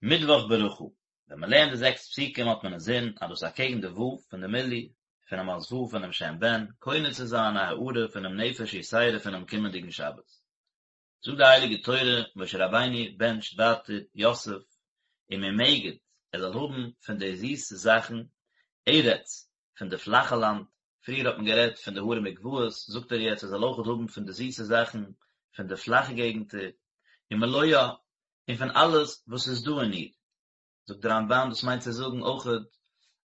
מיטוואך ברכה, ווען מען לערנט די זעקס פסוקים האט מען אינזין אז דאס איז אקעגן די ו' פון די מילוי פונעם אות ו' פונעם שם בן, קונה צו זיין א הארה פונעם נפש יתירה פונעם קומענדיגן שבת. זאגט די הייליגע תורה, משה רבינו בענטשט ווייטער יוסף וממגד, ער זאל האבן פון די זיסע זאכן, ארץ, פון די פלאכע לאנד, פריער האט מען גערעדט פון די הרים וגבעות, זאגט ער יעצט ער זאל אויכעט האבן פון די זיסע זאכן פון די פלאכע געגנטער, ומלואה, און פון אלעס וואס איז דא אין איר. זאגט דער רמב"ן דאס מיינט צו זאגן אויכעט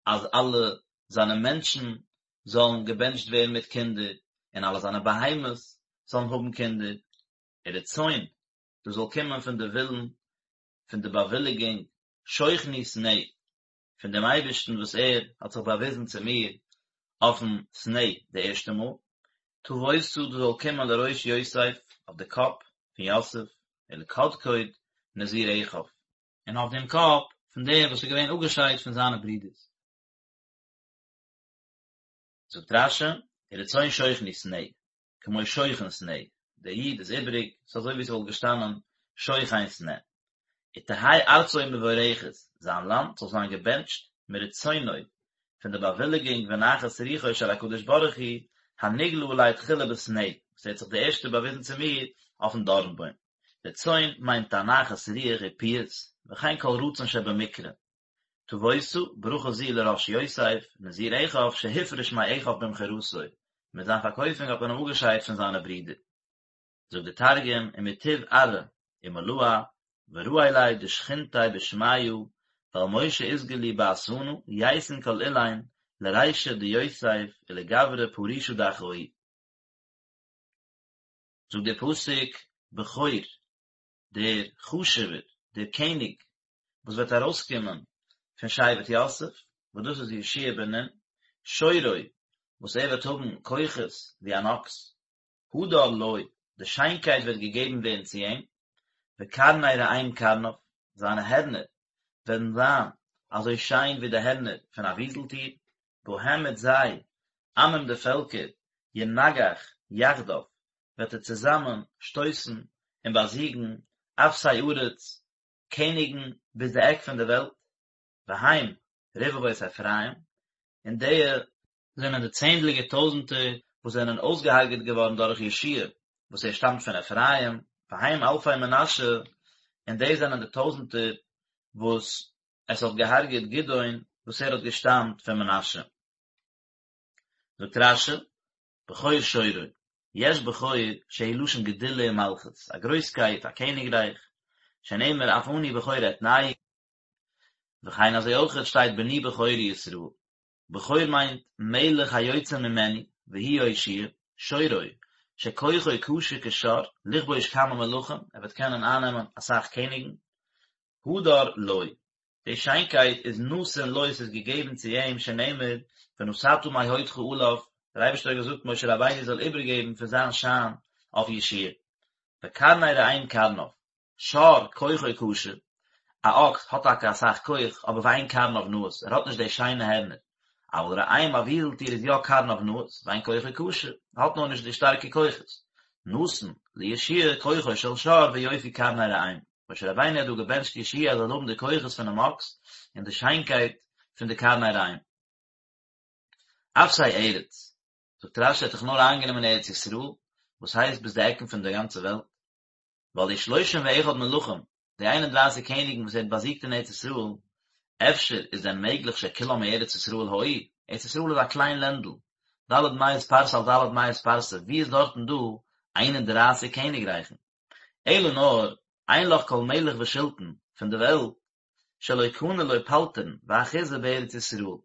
אז אלע זיינע מענטשן זאלן געבענטשט ווערן מיט קינדער, און אלע זיינע בהמות זאלן האבן קינדער, ורצון, דאס זאל קומען פון די ווילן, פון די באוויליגונג, שוכני סנה, פון דעם אייבערשטן וואס ער האט זיך באוויזן צו מיר אויפן סנה די ערשטע מאל, תבואתה דאס זאל קומען לראש יוסף, אויף די קאפ פון יוסף, ולקדקוד נזיר אחיו. און אויף דעם קאפ פון דער וואס איז געווען אפגעשיידט פון זיינע ברידערס. זאגט רש"י, ורצון שוכני סנה, כמו שוכן סנה, דער יוד איז איבריג, ס'איז אזוי ווי ס'וואלט געשטאנען שוכן סנה. ותהא ארצו מבורכת, זיין לאנד זאל זיין געבענטשט, מרצונו, פון די באוויליגונג ונחת רוחו של הקדוש ברוך הוא, הנגלה עלי תחילה בסנה, וואס ער האט זיך די ערשטע באוויזן צו מיר אויפן דארנבוים. רצון מיינט א נחת רוח ופיוס, וכן כל רצון שבמקרה. תבואתה, ברכה זו לראש יוסף, נזיר אחיו, שהופרש מאחיו במכירתו, מיט זיין פארקויפונג האט מען אים אפגעשיידט פון זיינע ברידער. זאגט דער תרגום, ומטוב ארעא ומלואה, ורעי ליה דשכינתיה בשמיא, ועל משה אתגלי באתונא, ייתון כל אילין, לרישא דיוסף ולגברא פרישא דאחוהי. זאגט דער פסוק, בכור, דער חשוב'ער, דער קעניג, וואס וועט ארויסקומען פון שבט יוסף, וואס דאס איז יהושע בן נון, שורו, וואס ער וועט האבן כוחות ווי אן אקס, הדר לו, די שיינקייט וועט געגעבן ווערן צו אים, וקרני ראם קרניו, זיינע הערנער וועלן זיין אזוי שיין ווי די הערנער פון א וויזלטיר, בהם מיט זיי, עמים די פעלקער, ינגח יחדיו, וועט ער צוזאמען שטויסן און באזיגן אפסי ארץ, קעניגן ביז די עק פון די וועלט, והם רבבות אפרים, און די זענען די צענדליגער טויזנטער וואס זענען אויסגעהרגעט געווארן דורך יהושע וואס ער שטאמט פון אפרים, והם אלפי מנשה, און די זענען די טויזנטער וואס עס האט געהרגעט גדעון וואס ער האט געשטאמט פון מנשה. זאגט רש"י, בכור שורו, יש בכור שהוא לשון גדולה ומלכות, א גרויסקייט, א קעניגרייך, שנאמר אף אני בכור אתנהו, וכן אזוי אויכעט שטייט בני בכורי ישראל, בכור מיינט מלך היוצא ממנו, והוא יהושע, שורו, שכוחו קשה כשור, לכבוש כמה מלכים, ער וועט קענען אייננעמען אסאך קעניגן, הדר לו, די שיינקייט איז נתון לו, ס'איז געגעבן צו אים, שנאמר, ונתתה מהודך עליו, דער אייבערשטער האט געזאגט משה רבינו זאל איבערגעבן פון זיין שיין אויף יהושע וקרני ראם קרניו, שור כוחו קשה, א אקס האט טאקע אסאך כח, אבער ואין קרניו נאות, ער האט נישט די שיינע הערנער, אבל ראם א וויזלטיר איז יא קרניו נאות, ואין כוחו קשה, האט נאר נישט די שטארקע כוחות. נתן ליהושע כוחו של שור ויופי קרני ראם. משה רבינו האט דא געבענטשט יהושע ער זאל האבן די כוחות פונעם אקס און די שיינקייט פון די קרני ראם. אפסי ארץ, זאגט רש"י האט דאך נאר איינגענומען ארץ ישראל, וואס הייסט ביז די עקן פון די גאנצע וועלט, ווייל די שלושים ואחד מלכים, די איין און דרייסיג קעניגן וואס ער האט באזיגט אין ארץ ישראל, אפשר איז דען מעגליך שכולם מארץ ישראל היו? ארץ ישראל איז א קליין לענדל, ד' מאות פרסה על ד' מאות פרסה, ווי איז דארטן דא איין און דרייסיג קעניגרייכן? אלא נאר, אין לך כל מלך ושלטון פון די וועלט, שלא קנה לו פלטרין ואחוזה בארץ ישראל,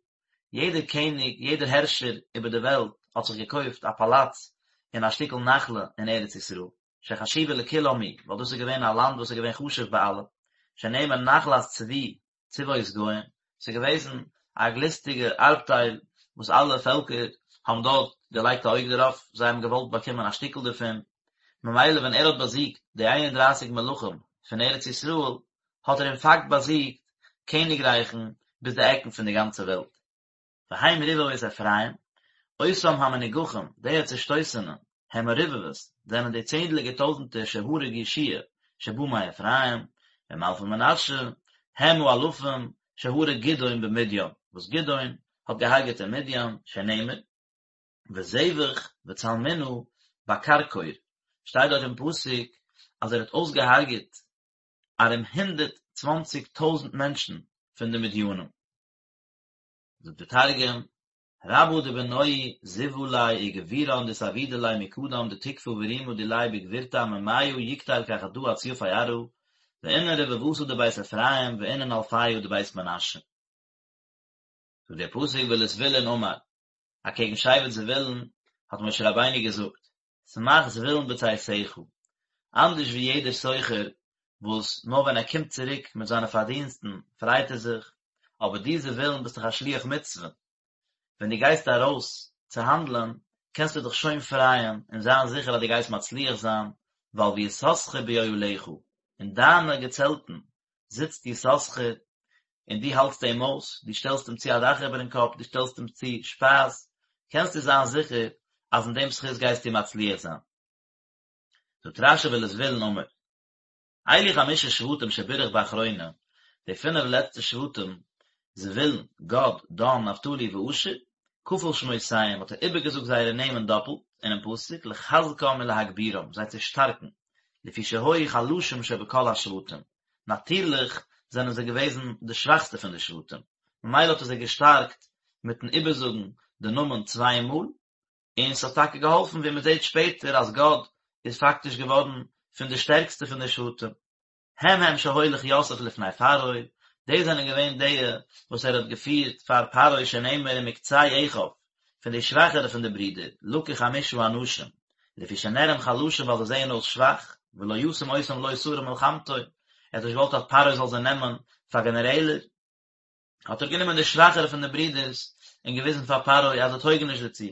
יעדער קעניג, יעדער הערשער איבער די וועלט האט זיך געקויפט א פאלאץ און א שטיקל נחלה אין ארץ ישראל, שחשובה לכולם היא, ווייל דאס איז געווען א לאנד וואס איז געווען חשוב ביי אלע, שנאמר נחלת צבי צבאות גוים, ס'איז געוועזן א גליסטיגע ארבטייל וואס אלע פעלקער האבן דארט געלייגט א אויג דערויף, זיי האבן געוואלט באקומען א שטיקל דערפון, ממילא ווען ער האט באזיגט די איין און דרייסיג מלכים פון ארץ ישראל, האט ער אין פאקט באזיגט קעניגרייכן ביז די עקן פון די גאנצע וועלט. והם רבבות אפרים, אותם המנוגחים, די צעשטויסענע, הם הרבבות, זענען די צענדליגער טויזנטער שהרג יהושע שבא מאפרים, והם אלפי מנשה, הם האלפים שהרג גדעון במדין, וואס גדעון האט געהארגעט אין מדין, שנאמר, וזבח וצלמונע בכרכור, שטייט דארט אין פסוק אז ער האט אויסגעהארגעט ארום 120 טויזענט מענטשן פון די מדינים. זאגט די תרגום, רבא דבנוהי זיוה ליה וגבירן דאתעבידא ליה מקדם דתקפא ורימא דיליה בגבורתא עממיא יקטיל כחדא אציפי ארעא, ואינון רבבתא דבית אפרים ואינון אלפיא דבית מנשה. זאגט דער פסוק ולזבולון אמר, אקעגן שבט זבולון האט משה רבינו געזאגט, שמח זבולון בצאתך, אנדערש ווי יעדער סוחר וואס נאר ווען ער קומט צוריק מיט זיינע פארדינסטן פרייט ער זיך, אבער דו זבולון ביסט דאך א שליח מצוה, ווען דו גייסט ארויס צו האנדלען קענסטו דיך שוין פרייען און זיין זיכער אז דו גייסט מצליח זיין, ווייל ויששכר באהליך, אין דיינע געצעלטן זיצט יששכר און דו האלטסט אים אויס, דו שטעלסט אים צו א דאך איבערן קאפ, דו שטעלסט אים צו שפייז, קענסטו זיין זיכער אז אין דעם זכות גייסטו מצליח זיין. זאגט רש"י ולזבולון אמר, אלו חמשה שבטים שבירך באחרונה, די פינף לעצטע שבטים, זבולון, גד, דן, נפתלי ואשר, כפל שמותיהם, האט ער איבערגעזאגט זייערע נעמען דאפלט, אינעם פסוק, לחזקם ולהגבירם, זיי צו שטארקן, לפי שהיו חלשים שבכל השבטים, נאטירליך זענען זיי געוועזן די שוואכסטע פון די שבטים, ממילא האט ער זיי געשטארקט מיטן איבערזאגן די נאמען צוויי מאל, און ס'האט טאקע געהאלפן ווי מ'זעט שפעטער אז גד איז פאקטיש געווארן פון די שטערקסטע פון די שבטים. הם הם שהוליך יוסף לפני פרעה, די זענען געווען די וואס ער האט געפירט פאר פרעה שנאמר ומקצה אחיו, פון די שוואכערע פון די ברידער, לקח חמשה אנשים, לפי שנראים חלשים ווייל זיי זעען אויס שוואך, ולא ישים אותם לו שרי מלחמתו, ער האט נישט געוואלט אז פרעה זאל זיי נעמען פאר גענערעלער, האט ער גענומען די שוואכערע פון די ברידערס און געוויזן פאר פרעה אז זיי טויגן נישט דערצו.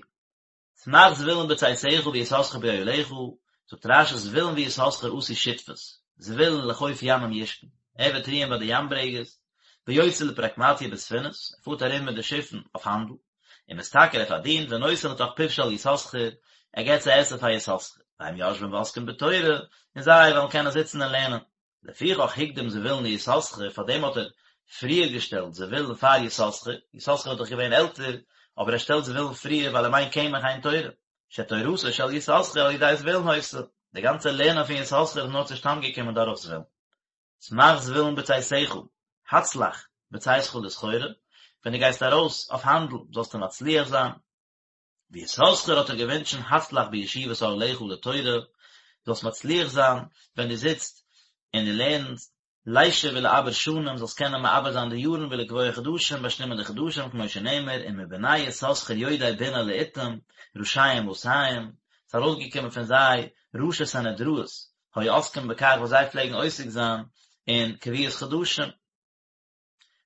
שמח זבולון בצאתך ויששכר באהליך, זאגט רש"י זבולון ויששכר עשו שותפות, זבולון לחוף ימים ישכון, ער וועט רוען ביי די ים ברעגעס, ויוצא לפרקמטיא בספינות, ער פארט ארום מיט די שיפן אויף האנדל, ומשתכר ער פארדינט ונותן לתוך פיו של יששכר, ער געבט צו עסן פאר יששכר, והם יושבים ועוסקים בתורה, און זיי וועלן קענען זיצן און לערנען. לפיכך הקדים זבולון ליששכר, פאר דעם האט ער פריער געשטעלט זבולון פאר יששכר, יששכר איז דאך געווען עלטער, אבער ער שטעלט זבולון פריער ווייל אם אין קמח אין תורה, שתורתו של יששכר על ידי זבולון היתה, די גאנצע לערנען פון יששכר איז נאר צושטאנד געקומען דורך זבולון. שמח זבולון בצאתך, הצלח בצאתך לסחורה, ווען דו גייסט ארויס אויף האנדל זאלסטו מצליח זיין. ויששכר האט ער געווינטשן הצלח בישיבת אהליך לתורה, זאלסט מצליח זיין ווען דו זיצט און דו לערנסט, לישב ולעבר שנים, זאלסט קענען מעבר זיין די יארן ולקבוע חדשים, באשטימען די חדשים, כמו שנאמר, ומבני יששכר יודעי בינה לעתים, ראשיהם מאתים, ס'איז ארויסגעקומען פון זיי ראשי סנהדראות, היו עוסקים בכך וואס זיי פלעגן עוסק זיין אין קביעות חדשים.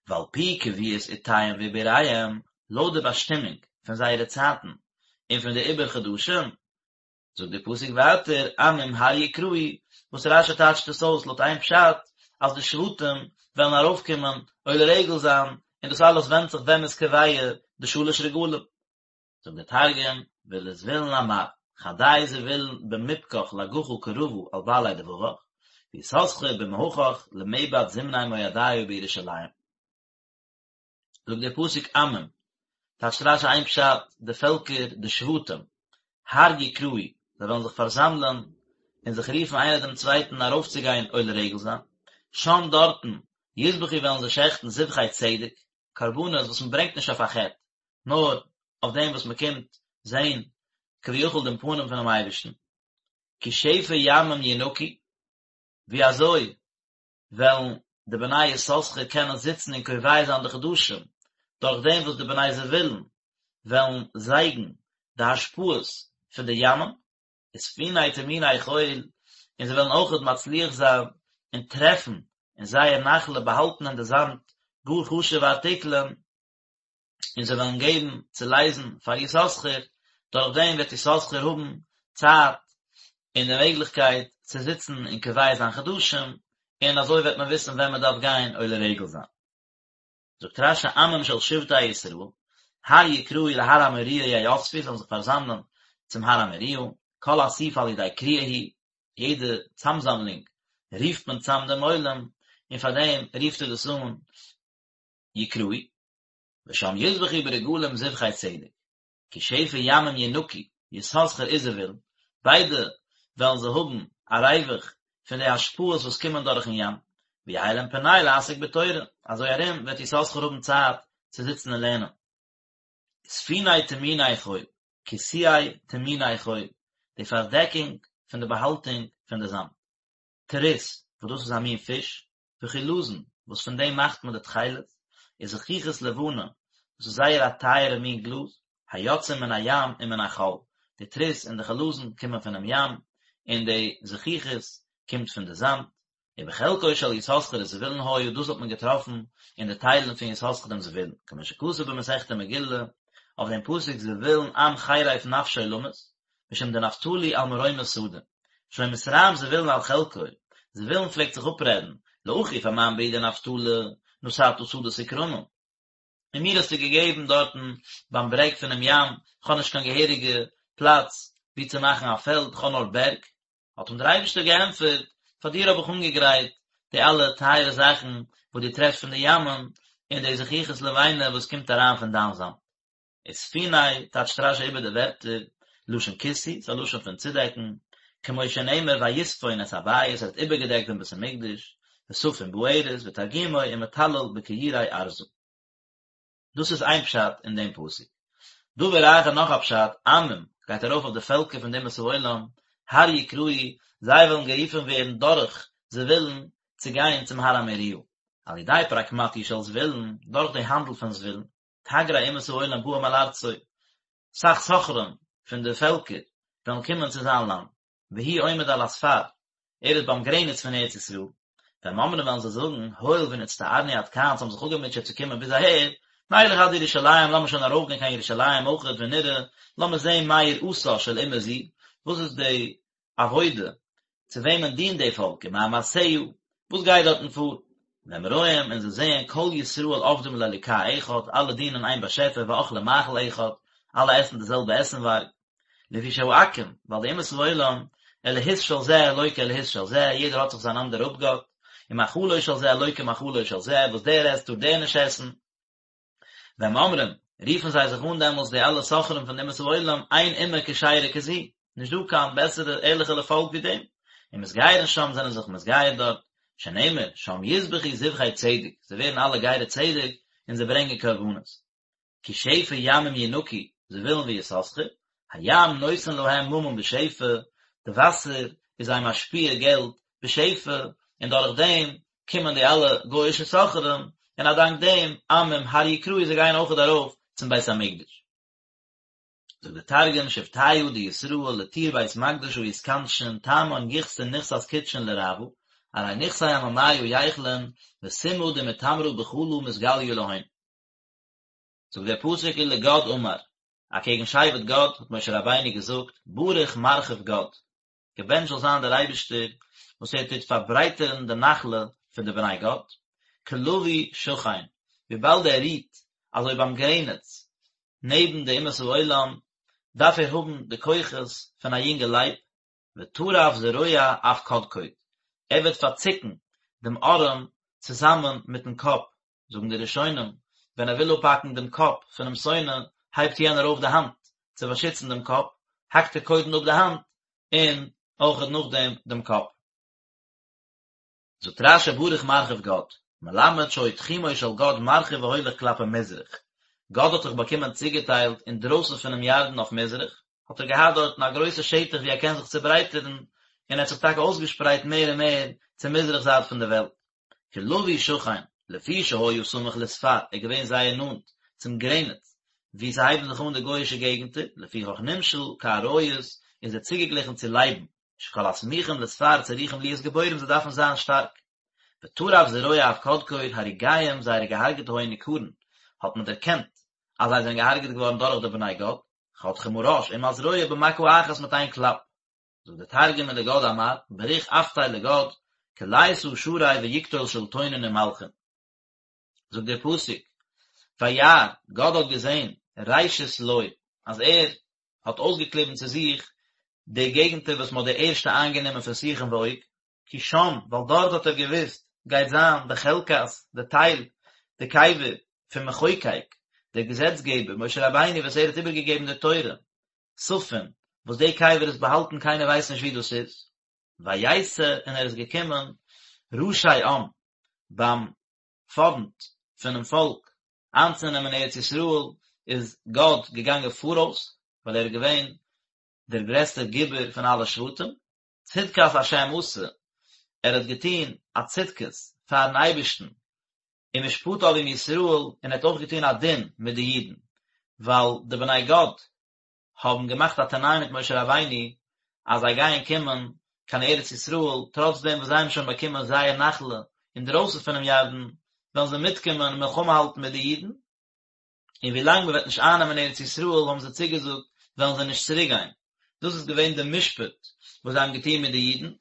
ועל פי קביעות עתיהם ועיבוריהם, לויט די באשטימונג פון זייערע צייטן און פון די עיבור חדשים, זאגט דער פסוק ווייטער, עמים הר יקראו, וואס רש"י טייטשט עס אויס לויט איין פשט, אז די שבטים וועלן ארויפקומען עולה רגל זיין, און דאס אלעס ווענדט זיך ווען מ'איז קובע די שלש רגלים. זאגט דער תרגום, ולזבולון אמר, חדי זבולון במבכך לגחא קרבא על בעלי דבבך, ויששכר במהכך למעבד זמני מועדיא בירושלים. זאגט דער פסוק עמים, טייטשט רש"י איין פשט, די פעלקער, די שבטים, הר יקראו, זיי וועלן זיך פארזאמלען און זיך רופן איינער דעם צווייטן ארויפצוגיין עולה רגל זיין, שם דארטן, יזבחו וועלן זיי שעכטן זבחי צדק, קרבנות וואס מען ברענגט נישט אויף א חטא, נאר אויף דעם וואס מען קומט זען כביכול דעם פנים פונעם אייבערשטן, כי שפע ימים ינקו, ווי אזוי וועלן די בני יששכר קענען זיצן און קובע זיין די חדשים, דורך דעם וואס די בני זבולון וועלן זייגן די השפעות פון די ימים, וספיני טמוני חול, און זיי וועלן אויכעט מצליח זיין און טרעפן אין זייער נחלה באהאלטן אין די זאמד גאר חשוב'ע ארטיקלען, און זיי וועלן געבן צו לייזן פאר יששכר, דורך דעם וועט יששכר האבן צייט און די מעגליכקייט צו זיצן און קובע זיין חדשים, און אזוי וועט מען וויסן ווען מען דארף גיין עולה רגל זיין. זאגט רש"י עמים של שבטי ישראל, הר יקראו להר המוריה יאספו, זיי זאלן זיך פארזאמלען צום הר המוריה, כל אסיפה על ידי קריאה היא, יעדע צאמזאמלונג רופט מען צאם דעם עולם, און פאר דעם רופט ער דאס אן יקראו, ושם יזבחו ברגלים זבחי צדק, כי שפע ימים ינקו, יששכר וזבולון, ביידע וועלן זיי האבן א ריווח פון די השפעות וואס קומען דורכן ים, ויהא להם פנאי לעסוק בתורה, אזוי ארום וועט יששכר האבן צייט צו זיצן און לערנען. וספוני טמוני חול, כסויי טמוני חול, די פארדעקונג פון די באהאלטונג פון די זאמד. טרית, וואס דאס איז א מין פיש, וחלזון, וואס פון דעם מאכט מען די תכלת, וזכוכית לבנה, דאס איז זייער א טייערע מין גלאז, היוצאים מן הים ומן החול, די טרית און די חלזון קומען פונעם ים, און די זכוכית קומט פון די זאמד, ובחלקו של יששכר וזבולון היה, דאס האט מען געטראפן אין די טיילן פון יששכר און זבולון, כמו שכתוב במסכת מגילה, אויף דעם פסוק זבולון עם חרף נפשו למות, משום דנפתלי על מרומי שדה. שהיה מתרעם זבולון על חלקו, זבולון פלעגט זיך אפרעדן, לאחי פאר מיין ברודער נפתלי, נתת שדות וכרמים. און מיר האסטו געגעבן דארטן ביים ברעג פונעם ים, כ'האב נישט קיין געהעריגע פלאץ וואו צו מאכן א פעלד, כ'האב נאר בערג. האט אים דער אייבערשטער געענטפערט, פאר דיר האב איך אנגעגרייט די אלע טייערע זאכן וואס דו טרעפסט פון די ימים, און די זכוכית לבנה וואס קומט אריין פון דיין זאמד. וספוני, טייטשט רש"י איבער די ווערטער, לשון כיסוי, ס'איז א לשון פון צודעקן, כמו שנאמר ויספון את הבית, ער האט איבערגעדעקט דעם בית המקדש, וספון בארז, ותרגומו ומטלל בכיורי ארזא. דאס איז איין פשט אין דעם פסוק. דבר אחר נאך א פשט, עמים, גייט ארויף אויף די פעלקער פון די אומות העולם, הר יקראו, זיי וועלן גערופן ווערן דורך זבולון צו גיין צום הר המוריה. על ידי פרקמטיא של זבולון, דורך די האנדל פון זבולון. תגרי אומות העולם באים אל ארצו, סאך סוחרים פון די פעלקער וועלן קומען צו זיין לאנד, והוא עומד על הספר, ער איז ביים גרעניץ פון ארץ ישראל, והם אומרים וועלן זיי זאגן, הואיל ונצטערנו עד כאן, אונז האבן זיך אפגעמוטשעט צו קומען ביז אהער, נלך עד ירושלים, לאמיר שוין ארויפגיין קיין ירושלים אויכעט ונראה, לאמיר זען מה יראתה של אומה זו, וואס איז די עבודה, צו וועמען דינט די פאלק, ומה מעשיה, וואס גייט דארטן פאר? והם רואים, און זיי זעען, כל ישראל עובדים לאלוקה אחד, אלע דינען איין באשעפער, ואוכלים מאכל אחד, אלע עסן די זעלבע עסנווארג. לפי שהעכו"ם, ווייל די אומות העולם, אלהות של זה לא כאלהות של זה, יעדער האט זיך זיין אנדערע אפגאט, ומאכלו של זה לא כמאכלו של זה, וואס דער עסט טאר דער נישט עסן. והם אומרים, רופן זיי זיך אן דעמאלס די אלע סוחרים פון די אומות העולם, אין אומה כשרה כזו, נישט דא קיין בעסערע ערליכערע פאלק ווי דעם, ומתגיירין שם זענען זיך מתגייר דארט, שנאמר, שם יזבחו זבחי צדק, זיי ווערן אלע גרי צדק, און זיי ברענגען קרבנות. כי שפע ימים ינקו, זבולון ויששכר, הים נותן להם ממון בשפע, די וואסער איז זיי משפיע געלט בשפע, און דורך דעם קומען די אלע גוי'אישע סוחרים, און א דאנק דעם עמים הר יקראו זיי גייען אויכעט ארויף צום בית המקדש. זאגט דער תרגום, שבטיא דישראל לטור בית מקדשא יתכנשון תמן יכסון נכסת קודשין לרעוא, ארי נכסי עממיא ייכלון וסומא דמטמרא בחלא מתגליא להון. זאגט דער פסוק ולגד אמר, אקעגן שבט גד האט משה רבינו געזאגט, ברוך מרחיב גד, געבענטשט זאל זיין דער אייבערשטער וואס ער טוט פארברייטערן די נחלה פון די בני גד, כלביא שכן, וויבאלד ער רוהט אזוי ביים גרעניץ נעבן די אומות העולם, דארף ער האבן די כוחות פון א יונגע לייב, וטרף זרוע אף קדקוד, ער וועט פארצוקן דעם ארעם צוזאמען מיטן קאפ זאגן די ראשונים, ווען ער וויל אפהאקן דעם קאפ פונעם שונא, הייבט יענער אויף די האנט צו באשיצן דעם קאפ, האקט ער קודם אפ די האנט, און אויכעט נאכדעם דעם קאפ. זאגט רש"י ברוך מרחיב גד, מלמד שהיה תחומו של גד מרחיב והולך כלפי מזרח, גד האט זיך באקומען צוגעטיילט אינדרויסן פונעם ירדן אויף מזרח, האט ער געהאט דארטן א גרויסע שטח וואו ער קען זיך צוברייטערן, און ער האט זיך טאקע אויסגעשפרייט מער און מער צו מזרח זייט פון די וועלט. כלביא שכן, לפי שהיה סמוך לספר, ער איז געווען זייער נאנט צום גרעניץ וואו ס'הייבן זיך אן די גוי'אישע געגנטער, לפיכך נמשל כאריות, איז ער צוגעגליכן צו לייבן, שכל הסמוכים לספר צריכים להיות גבורים זיי דארפן זיין שטארק. וטרף זרוע אף קדקוד הרוגיהם זייערע געהארגעטע היו ניכרין, האט מען דערקענט אז זיי זענען געהארגעט געווארן דורך די בני גד, חותכים הראש עם הזרוע במכה אחת מיט איין קלאפ. זאגט דער תרגום ולגד אמר, בריך אפתיה לגד, כליתא שרי ויקטול שולטונין ומלכין. זאגט דער פסוק, וירא, גד האט געזען, ראשית לו, אז ער האט אויסגעקליבן צו זיך די געגנטער וואס מען האט די ערשטע איינגענומען פון סיחון ועוג, כי שם, ווייל דארט האט ער געוואוסט, גייט זיין די חלקת, די טייל, די קבר פון מחוקק, דער געזעצגעבער, משה רבינו וואס ער האט איבערגעגעבן די תורה, ספון, וואס די קבר איז באהאלטן קיינער ווייסט נישט וואו דאס איז. ויתא און ער איז געקומען ראשי עם, ביים פארנט פונעם פאלק איינצונעמען ארץ ישראל איז גד געגאנגען פאראויס, ווייל ער איז געווען דער גרעסטער גיבור פון אלע שבטים, צדקת השם עשה, ער האט געטון א צדקות פארן אייבערשטן, ומשפטיו עם ישראל, און ער האט אויך געטון א דין מיט די אידן, ווייל די בני גד האבן געמאכט א תנאי מיט משה רבינו אז זיי גייען קומען קיין ארץ ישראל, טראץ דעם וואס זיי האבן שוין באקומען זייער נחלה אינדרויסן פונעם ירדן, וועלן זיי מיטקומען און מלחמה האלטן מיט די אידן, און ווי לאנג מען וועט נישט אייננעמען ארץ ישראל האבן זיי צוגעזאגט וועלן זיי נישט צוריק גיין, דאס איז געווען די משפט וואס זיי האבן געטון מיט די אידן,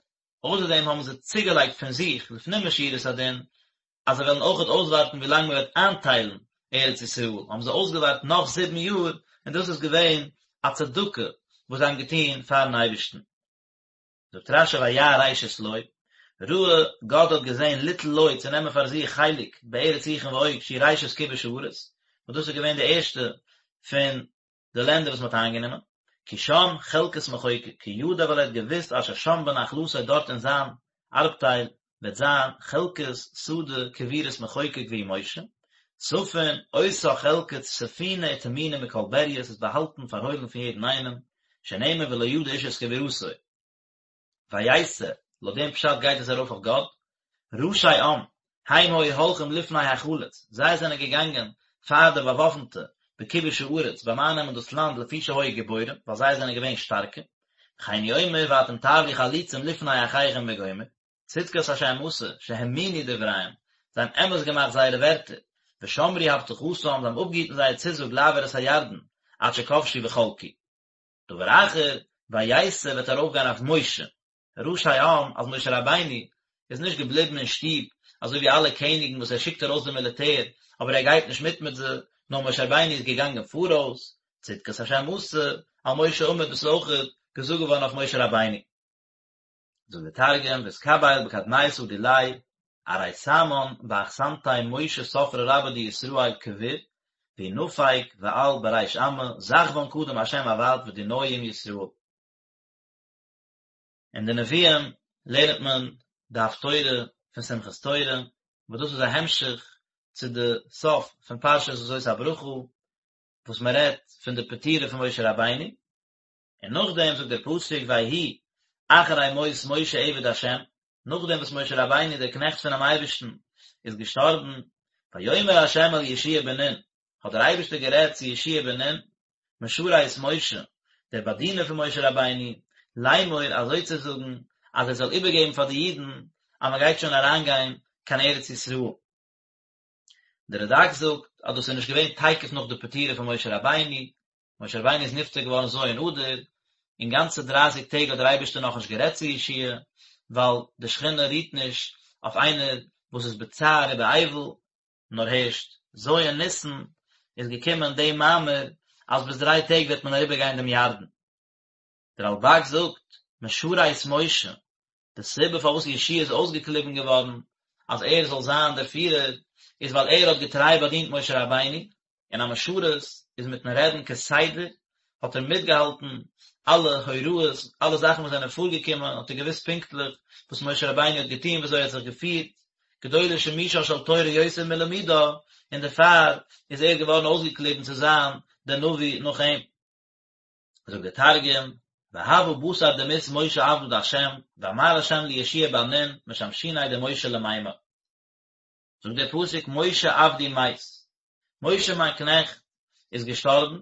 אויסער דעם האבן זיי צוגעלייגט פון זיך לפנים משורת הדין אז זיי וועלן אויכעט אויסווארטן ווי לאנג מען וועט איינטיילן ארץ ישראל, האבן זיי אויסגעווארט נאך זיבן יאר, און דאס איז געווען א צדקה וואס זיי האבן געטון פארן אייבערשטן. זאגט רש"י וירא ראשית לו, ראה גד האט געזען ליטול לו צו נעמען פאר זיך חלק בארץ סיחון ועוג שהיא ראשית כיבוש הארץ, וואס דאס איז געווען די ערשטע פון די לענדער וואס מען האט איינגענומען, כי שם חלקת מחוקק, כי ידע ווייל ער האט געוואוסט אשר שם בנחלתו דארט אין זיין ארבטייל וועט זיין חלקת שדה קבורת מחוקק והוא משה, ספון, אותה חלקה ספונה וטמונה מכל בריה, ס'איז באהאלטן פארהוילן פון יעדן איינעם, שנאמר ולא ידע איש את קבורתו. ויתא, לויט דעם פשט גייט עס ארויף אויף גד, ראשי עם, הם היו הולכים לפני החלוץ, זיי זענען געגאנגען פאר די באוואפנטע בכיבוש הארץ ביים אייננעמען דאס לאנד לפי שהיו גיבורים, ווייל זיי זענען געווען שטארקע, וכן הוא אומר ואתם תעברו חלוצים לפני אחיכם וגומר, צדקת השם עשה, שהאמינו דבריהם, זיי האבן אמת געמאכט זייערע ווערטער, ושמרו הבטחתם, זיי האבן אפגעהיטן זייער צוזאג לעבור את הירדן, עד שכבשו וחלקו. דבר אחר, ויתא וועט ארויפגיין אויף משה, ראשי עם, אז משה רבינו איז נישט געבליבן אין שטוב, אזוי ווי אלע קעניגן וואס ער שיקט ארויס די מיליטער, אבער ער גייט נישט מיט מיט זיי, נאר משה רבינו איז געגאנגען פאראויס, צדקת השם עשה, על משה עמד דאס איז אויך געזאגט געווארן אויף משה רבינו. זאגט דער תרגום, ואתקביל בקדמיתא דיליה אריסמן באחסנתיה משה ספרא רבה דישראל קביר והוא נפיק ועל בריש עמא זכוון קדם השם עבד ודינוי עם ישראל. אין די נביאים לערנט מען די הפטורה פון שמחת תורה, וואס דאס איז א המשך צו די סוף פון פרשת וזאת הברכה, וואס מען רעדט פון די פטירה פון משה רבינו, און נאכדעם זאגט דער פסוק ויהי אחרי מות משה עבד ה', נאכדעם וואס משה רבינו דער קנעכט פונעם אייבערשטן איז געשטארבן, ויאמר ה' אל יהושע בן נון, האט דער אייבערשטער גערעדט צו יהושע בן נון, משרת משה, דער באדינער פון משה רבינו, לאמור, אזוי צו זאגן, אז ער זאל איבערגעבן פאר די אידן אז מען גייט שוין אריינגיין קיין ארץ ישראל. דער רד"ק זאגט אז דאס איז נישט געווען תיכף נאך די פטירה פון משה רבינו, משה רבינו איז נפטר געווארן ז' אדר, און גאנצע דרייסיג טעג האט דער אייבערשטער נאכנישט גערעדט צו יהושע, ווייל די שכינה רוהט נישט אויף איינער וואס איז בצער ובאבל, נאר הערשט ז' ניסן איז געקומען די מאמר אז ביז דריי טעג וועט מען אריבער גיין דעם ירדן. דער רלב"ג זאגט, משרת משה, די סיבה פארוואס יהושע איז אויסגעקליבן געווארן אז ער זאל זיין דער פירער, איז ווייל ער האט געטריי באדינט משה רבינו, און א משרת איז מיטן רעדן כסדר, האט ער מיטגעהאלטן אלע הוראות, אלע זאכן וואס זענען פארגעקומען, האט ער געוואוסט פונקטליך וואס משה רבינו האט געטון, וויאזוי ער האט זיך געפירט, גדולה שימושה של תורה יותר מלימודה, און דערפאר איז ער געווארן אויסגעקליבן צו זיין דער נביא נאך אים. זאגט דער תרגום, והוה בתר דמית משה עבדא דהשם, ואמר השם ליהושע בן נון משמשיניה דמשה למימר. זאגט דער פסוק משה עבדי מת, משה מיין קנעכט איז געשטארבן,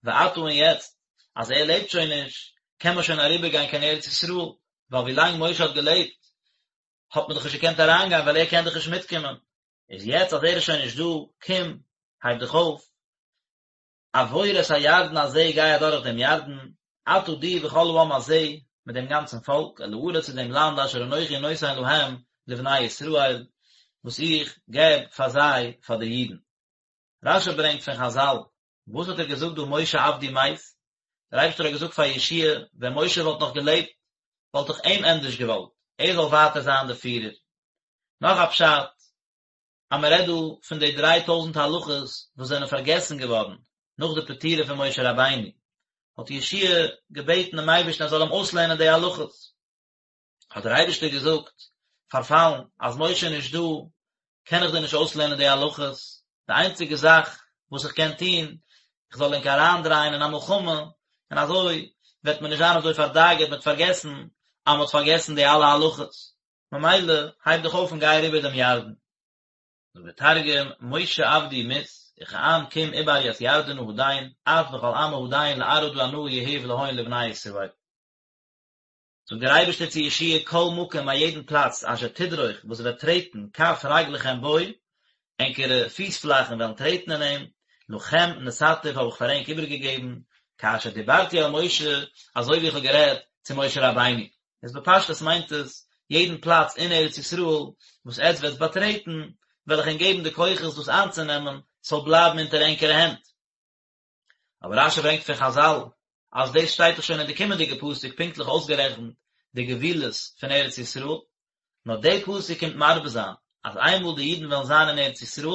ועתה און יעצט אז ער לעבט שוין נישט, קען מען שוין אריבערגיין קיין ארץ ישראל, ווייל ווי לאנג משה האט געלעבט האט מען דאך נישט געקענט אריינגיין ווייל ער קען דאך נישט מיטקומען, איז יעצט אז ער איז שוין נישט דא, קום, הייב דיך אויף, עבור את הירדן הזה גיי אדורך דעם ירדן, אתה דו וכל העם הזה, מיט דעם גאנצן פאלק, אל הארץ צו דעם לאנד אשר אנכי נותן להם לבני ישראל, וואס איך געב פאר זיי, פאר די אידן. רש"י ברענגט פון חז"ל, וואס האט ער געזאגט דא משה עבדי מת? דער אייבערשטער האט געזאגט פאר יהושע ווען משה וואלט נאך געלעבט, וואלט איך אים ענדערש געוואלט, ער זאל ווייטער זיין דער פירער. נאך א פשט, אז מען רעדט דא פון די דריי טויזנט הלכות וואס זענען פארגעסן געווארן נאך די פטירה פון משה רבינו, האט יהושע געבעטן דעם אייבערשטן ער זאל אים אויסלערנען די הלכות. האט דער אייבערשטער געזאגט, פארפאלן, אז משה איז נישט דא, קען איך דיר נישט אויסלערנען די הלכות, די איינציגע זאך וואס איך קען טון, איך זאל ענק אריינדרייען אין א מלחמה, און אזוי וועט מען נישט זיין אזוי פארדאגה'ט מ'וועט פארגעסן אז מ'האט פארגעסן די אלע הלכות, ממילא הייב דיך אויף און גיי אריבער דעם ירדן. זאגט דער תרגום, משה עבדי מית, וכען קום עבר ית ירדנא הדין, את וכל עמא הדין לארעא דאנא יהיב להון לבני ישראל. זאגט דער אייבערשטער צו יהושע כל מקום א יעדן פלאץ אשר תדרוך וואס וועט טרעטן כף רגלכם בו, ענקערע פיס פלאכן וועלן טרעטן אין אים, לכם נתתיו האב איך פאר ענק איבערגעגעבן, כאשר דיברתי אל משה, אזוי ווי איך האב גערעדט צו משה רבינו. איז בפשטות מיינט עס, יעדן פלאץ אין ארץ ישראל וואס עטץ וועטס באטרעטן, וועל איך ענק געבן די כוחות דאס איינצונעמען, ס'זאל בלייבן אונטער ענקערע הענט. אבער רשי ברענגט פון חזל אז דאס שטייט דאך שוין אין די קומענדיגע פסוק פונקטליך אויסגערעכנט די גבולות פון ארץ ישראל, נאר די פסוק קומט מרבה זיין אז איינמאל די אידן וועלן זיין אין ארץ ישראל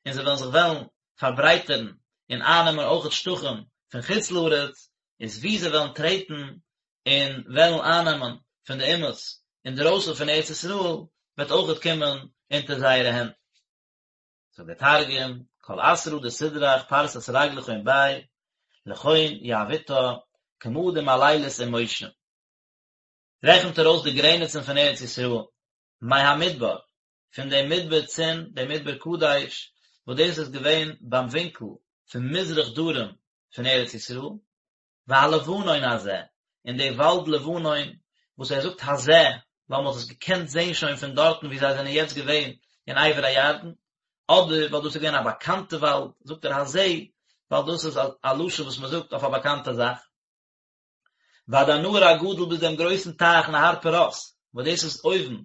און זיי וועלן זיך וועלן פארברייטערן און אייננעמען אויכעט שטחים פון חוץ לארץ, איז וואו זיי וועלן טרעטן און וועלן אייננעמען פון די אומות אינדרויסן פון ארץ ישראל וועט אויכעט קומען אונטער זייערע הענט. זאגט דער תרגום, כל אתרא דתדרך פרסת רגלכון ביה, לכון יהביתה, כמא דמלילית עם משה. רעכנט ער אויס די גרעניצן פון ארץ ישראל, מהמדבר, פון דעם מדבר צין, דעם מדבר קדש, וואס דאס איז געווען ביים ווינקל פון מזרח דרום פון ארץ ישראל, והלבנון הזה, און די וואלד לבנון, וואס ער זאגט הזה, ווייל מען האט עס געקענט זען שוין פון דארטן וואו זיי זענען יעצט געווען אין עבר הירדן, אדער ווייל דאס איז געווען א באקאנטע וואלד, זאגט ער הזה, ווייל דאס איז א לשון וואס מען זאגט אויף א באקאנטע זאך. ועד הנהר הגדול ביז דעם גרויסן טייך נהר פרת, וואס דאס איז אויבן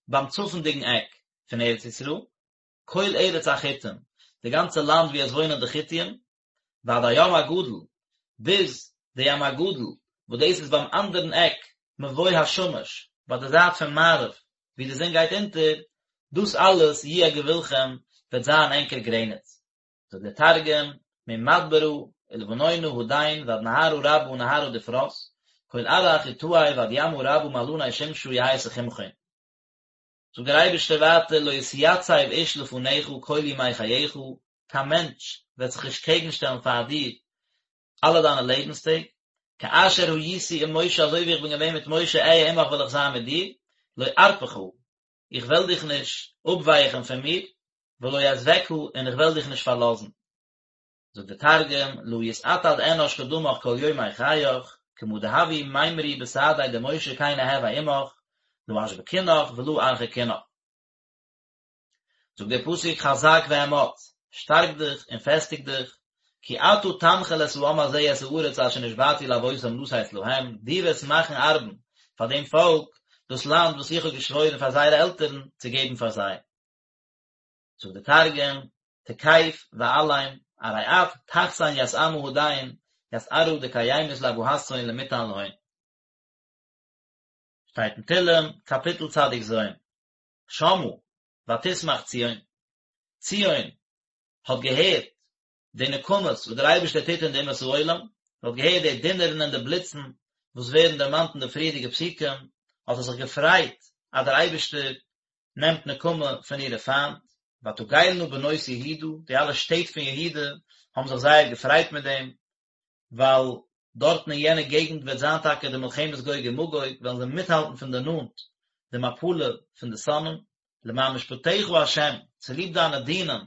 ביים צפונדיגן עק פון ארץ ישראל, כל ארץ החתים, די גאנצע לאנד וואו עס וואוינען די חתים, ועד הים הגדול, ביז די ים הגדול, וואס דאס איז ביים אנדערן עק מבוא השמש, ביי די זייט פון מערב, וואו די זון גייט אונטער, דאס אלעס יהיה גבולכם, וועט זיין ענקער גרעניץ. זאגט דער תרגום, ממדברא ולבנונא הדין ועד נהרא רבא נהרא דפרת, כל ארעא חטאי ועד ימא רבא מעלני שמשא יהי תחומכון. זאגט דער אייבערשטער ווייטער לא יתיצב איש לפניך כל ימי חייך, קיין מענטש וועט זיך נישט קעגנשטעלן פאר דיר אלע דיינע לעבנס טעג, כאשר הייתי עם משה אזוי ווי איך בין געווען מיט משה אהיה עמך וועל איך זיין מיט דיר, לא ארפך, איך וועל דיך נישט אפווייכן פון מיר, ולא אעזבך, און איך וועל דיך נישט פארלאזן. זאגט דער תרגום, לא יתעתד אנש קדמך כל יומי חייך, כמא דהוו מימרי בסעדיה דמשה כן אהוי עמך, לא אשבקינך ולא ארחקינך. זאגט דער פסוק חזק ואמץ, שטארק דיך און פעסטיג דיך, כי אתה תנחיל את העם הזה את הארץ אשר נשבעתי לאבותם לתת להם, דו וועסט מאכן ארבן פאר דעם פאלק דאס לאנד וואס איך האב געשוואוירן פאר זייערע עלטערן צו געבן פאר זיי. זאגט דער תרגום, תקיף ואלים, ארי את תחסן ית עמא הדין, ית ארעא דקיימית לאבהתהון למיתן להון. שטייט אין תהלים, קאפיטל צדיק ז', שמעה, ותשמח ציון, ציון האט געהערט די נקמות וואס דער אייבערשטער טוט אין די אומות העולם, האט געהערט די דונערן און די בליצן וואס ווערן דערמאנט אין די פריערדיגע פסוקים, האט זי זיך געפרייט אז דער אייבערשטער נעמט נקמה פון אירע פיינט, ותגלנה בנות יהודה, די אלע שטעט פון יהודה האבן זיך זייער געפרייט מיט דעם, ווייל דארטן אין יענע געגנט וועט זיין טאקע די מלחמת גוג ומגוג, וועלן זיי מיטהאלטן פון די נאנט די מפלה פון די שונאים, למען משפטיך ה', צוליב דיינע דינים,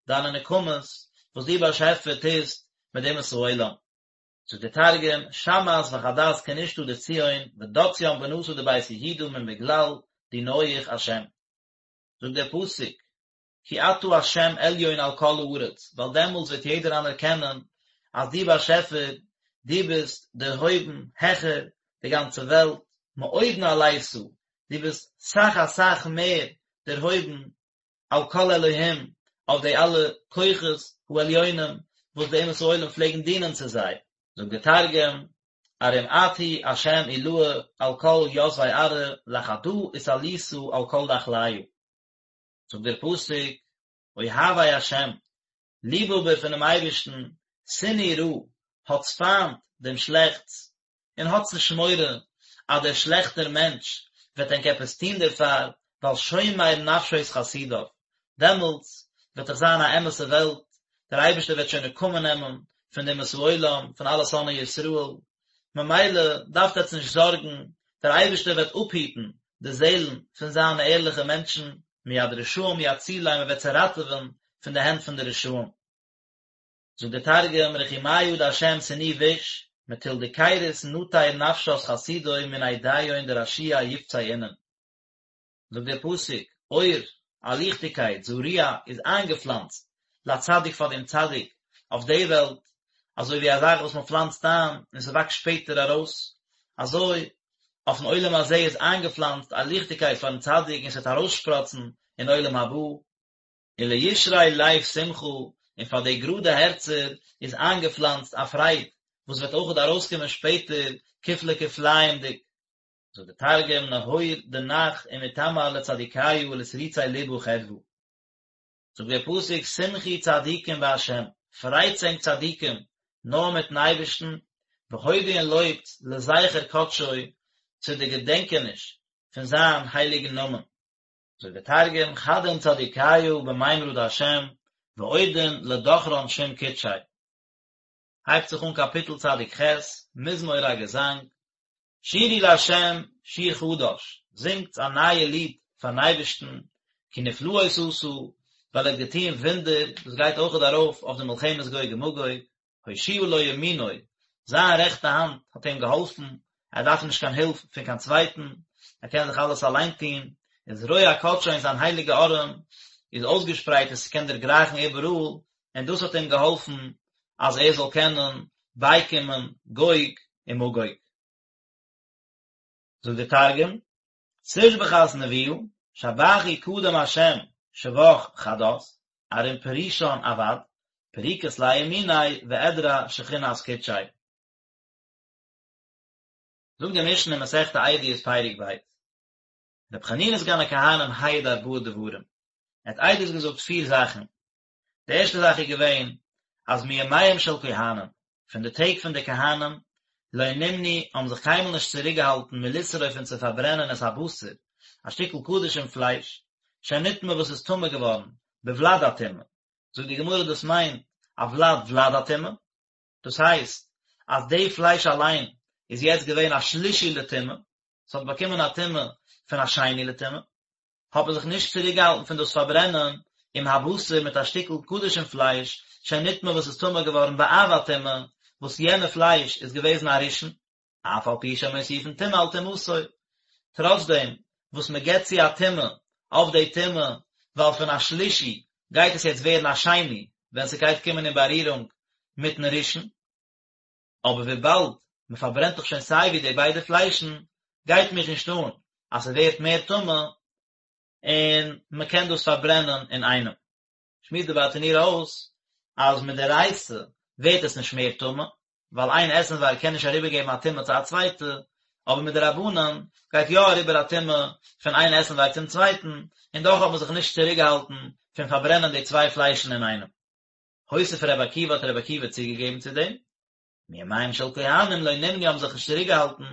דיינע נקמות, וואס דו באשעפער טוסט מיט די אומות העולם. זאגט דער תרגום, שמעת וחדת כנישתא דציון, ודצין בנתא דבית יהודה מן בגלל דינוהי השם. זאגט דער פסוק, כי אתה השם עליון על כל הארץ, ווייל דעמאלטס וועט יעדער אנערקענען אז דו באשעפער, דו ביסט דערהויבן העכער די גאנצע וועלט, מאוד נעלית, דו ביסט סאך אסאך מער דערהויבן על כל אלהים, אויף די אלע כוחות העליונים וואס די אומות העולם פלעגן דינען צו זיי. זאגט דער תרגום, ארום את הוא השם עילאה על כל יתבי ארעא, לחדא אתעלית על כל דחליא. זאגט דער פסוק, אוהבי השם, ליבהאבער פונעם אייבערשטן, שנאו רע, האטס פיינט דעם שלעכטס, און האטס נישט מורא אז דער שלעכטער מענטש וועט ענק עפעס טון דערפאר, ווייל שומר נפשות חסידיו, דעמאלטס וועט דאך זיין א אמת'ע וועלט, דער אייבערשטער וועט שוין נקמה נעמען פון די אומות העולם, פון אלע שונאי ישראל, ממילא דארפט עטס נישט זארגן, דער אייבערשטער וועט אפהיטן די זעלן פון זיינע ערליכע מענטשן, מיד רשעים יצילם, ער וועט זיי ראטעווען פון די הענט פון די רשעים. זאגט דער תרגום, רחימיא דהשם סנאו ביש, מטול דכירות נטיר נפשת חסידוי מן אידיהון דרשיעי יפצי אינון. זאגט דער פסוק, אור, א ליכטיגקייט, זרוע, איז איינגעפלאנצט, לצדיק פאר דעם צדיק, אויף די וועלט, אזוי ווי א זאך וואס מען פלאנצט איין און ס'וואקסט שפעטער ארויס, אזוי אויפן עולם הזה איז איינגעפלאנצט א ליכטיגקייט פארן צדיק און ס'וועט ארויסשפראצן אין עולם הבא. ולישרי לב שמחה, און פאר די גראדע הערצער איז איינגעפלאנצט א פרייד, וואס וועט אויכעט ארויסקומען שפעטער כפלי כפליים'דיג. זאגט דער תרגום, נהור דנח ומתמר לצדיקיא ולתריצי לבא חדוה. זאגט דער פסוק, שמחו צדיקים בה', פרייטס ענק צדיקים נאר מיטן אייבערשטן, והודו און לויבט לזכר קדשו, צו די געדענקעניש פון זיין הייליגן נאמען. זאגט דער תרגום, חדון צדיקיא במימרא דה', ואודון לדכרן שם קודשיה. הייבט זיך אן קאפיטל צדיק ח', מזמור א געזאנג, שירו לה' שיר חדש, זינגטס א נייע ליד פארן אייבערשטן, כי נפלאות עשה, ווייל ער האט געטון וואונדער, דאס גייט אויכעט ארויף אויף די מלחמת גוג ומגוג, הושיעה לו ימינו, זיין רעכטע האנט האט אים געהאלפן, ער דארף נישט קיין הילף פון קיין צווייטן, ער קען זיך אלעס אליין טון, וזרוע קדשו און זיין הייליגע ארעם איז אויסגעשפרייט און ס'קען דערגרייכן איבעראל, און דאס האט אים געהאלפן אז ער זאל קענען בייקומען גוג און מגוג. זאגט דער תרגום, תושבחת נבואה, שבחו קדם השם שבח חדת, ארום פרישן עבד, פריקת ליה ימיניה ואדרע שכינת קודשיה. זאגט די משנה אין מסכת עדיות פרק ב', רבי חנינא סגן הכהנים העיד ארבעה דברים, ער האט עדות געזאגט פיר זאכן, די ערשטע זאך איז געווען אז מימיהם של כהנים, פון די טעג פון די כהנים, לא נמנעו, האבן זיך קיינמאל נישט צוריקגעהאלטן מלשרוף פון צו פארברענען את הבשר, א שטיקל קדשים פלייש, שנטמא וואס איז טמא געווארן, בוולד הטומאה. זאגט די גמרא דאס מיינט א ולד ולד הטומאה, דאס הייסט אז די פלייש אליין איז יעצט געווען א שלישי לטומאה, ס'האט באקומען א טומאה פון א שני לטומאה. האט מען זיך נישט צוריקגעהאלטן פון דאס פארברענען עם הבשר מיט א שטיקל קדשים פלייש שנטמא וואס איז טמא געווארן באב הטומאה, וואס יענע פלייש איז געוועזן א ראשון, אף על פי שמוסיפין טומאה על טומאתו, טראצדעם וואס מען גיבט צו א טומאה אויף די טומאה, ווייל פון א שלישי גייט עס יעצט ווערן א שני ווען ס'גייט קומען אין בארירונג מיטן ראשון. אבער וויבאלד מען פארברענט דאך שוין סיי ווי די ביידע פליישן, גייט מיך נישט אן אז ס'ווערט מער טמא, און מען קען דאס פארברענען אינאיינעם. שמועסט די ברטנורא אויס אז מדאורייתא ווערט עס נישט מער טמא, ווייל איין עסנווארג קען נישט אריבערגעבן א טומאה צו א צווייטע, אבער מדרבנן גייט יא אריבער א טומאה פון איין עסנווארג צום צווייטן, און דאך האט מען זיך נישט צוריקגעהאלטן פון פארברענען די צוויי פליישן אינאיינעם. הוסיף ר' עקיבא האט ר' עקיבא צוגעגעבן צו דעם, מימיהם של כהנים לא נמנעו האבן זיך נישט צוריקגעהאלטן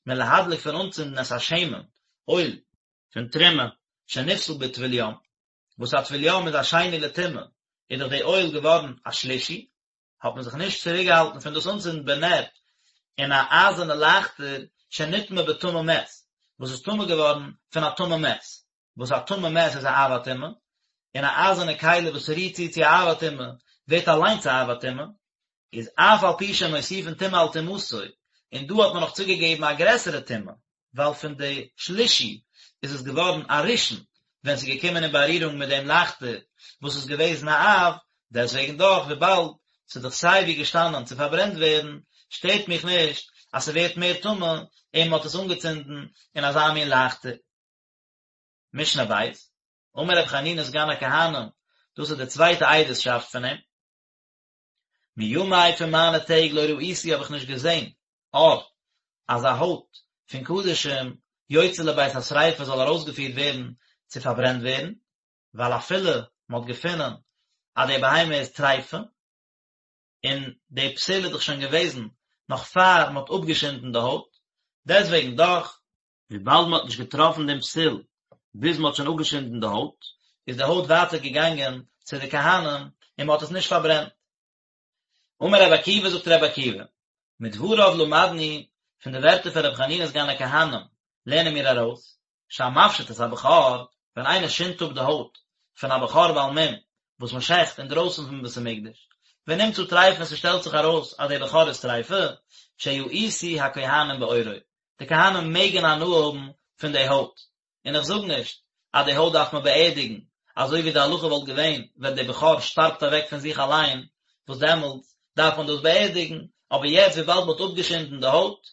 מלהדליק פון אנצינדן את השמן, אויל, פון תרומה, שנפסל בטבול יום, וואס א טבול יום איז א שני לטומאה, איז דאך די אויל געווארן א שלישי, האט מען זיך נישט צוריקגעהאלטן פון דאס אנצינדן בנר אין א אייזערנע לייכטער שנטמא בטמא מת, וואס איז טמא געווארן פון א טמא מת, וואס א טמא מת איז א אב הטומאה, און א אייזערנע כלי וואס רירט צו צו א אב הטומאה ווערט אליינס א אב הטומאה, איז אף על פי שמוסיפין טומאה על טומאתו, און דא האט מען נאך צוגעגעבן א גרעסערע טומאה, ווייל פון די שלישי איז עס געווארן א ראשון, ווען ס'איז געקומען אין בארירונג מיט דעם לייכטער וואס איז געוועזן א אב, דעסוועגן דאך וויבאלד ס'איז דאך סיי ווי געשטאנען צו פארברענט ווערן, שטערט מיך נישט אז ס'ווערט מער טמא און מ'האט עס אנגעצינדן אין אזא מין לייכטער. משנה ב', אמר רבי חנינא סגן הכהנים, דאס איז די צווייטע עדות'שאפט פון אים, מימי פון מיינע טעג לא ראיתי האב איך נישט געזען, עור, אז א הויט פון קדשים יוצא לבית השריפה זאל ארויסגעפירט ווערן צו פארברענט ווערן. ווייל אפילו מען האט געפונען אז די בהמה איז טריפה, און די פסול איז דאך שוין געוועזן נאך פאר מען האט אפגעשינדן די הויט, דעסוועגן דאך, וויבאלד מען האט נישט געטראפן דעם פסול ביז מען האט שוין אפגעשינדן די הויט, איז די הויט ווייטער געגאנגען צו די כהנים און מען האט עס נישט פארברענט. אמר רבי עקיבא זאגט רבי עקיבא, מדבריו למדנו, פון די ווערטער פון רבי חנינא סגן הכהנים לערנען מיר ארויס, שהמפשיט את הבכור, ווען איינער שינדט אפ די הויט פון א בכור בעל מום וואס מען שעכט אינדרויסן פון בית המקדש, ונמצא טריפה און ס'שטעלט זיך ארויס אז דער בכור איז טריפה, שיאותו הכהנים בעורו, די כהנים מעגן הנאה האבן פון די הויט, און איך זאג נישט אז די הויט דארף מען באערדיגן, אזוי ווי די הלכה וואלט געווען ווען די בכור שטארבט אוועק פון זיך אליין, וואס דעמאלטס דארף מען דאס באערדיגן, אבער יעצט וויבאלד מען האט אפגעשינדן די הויט,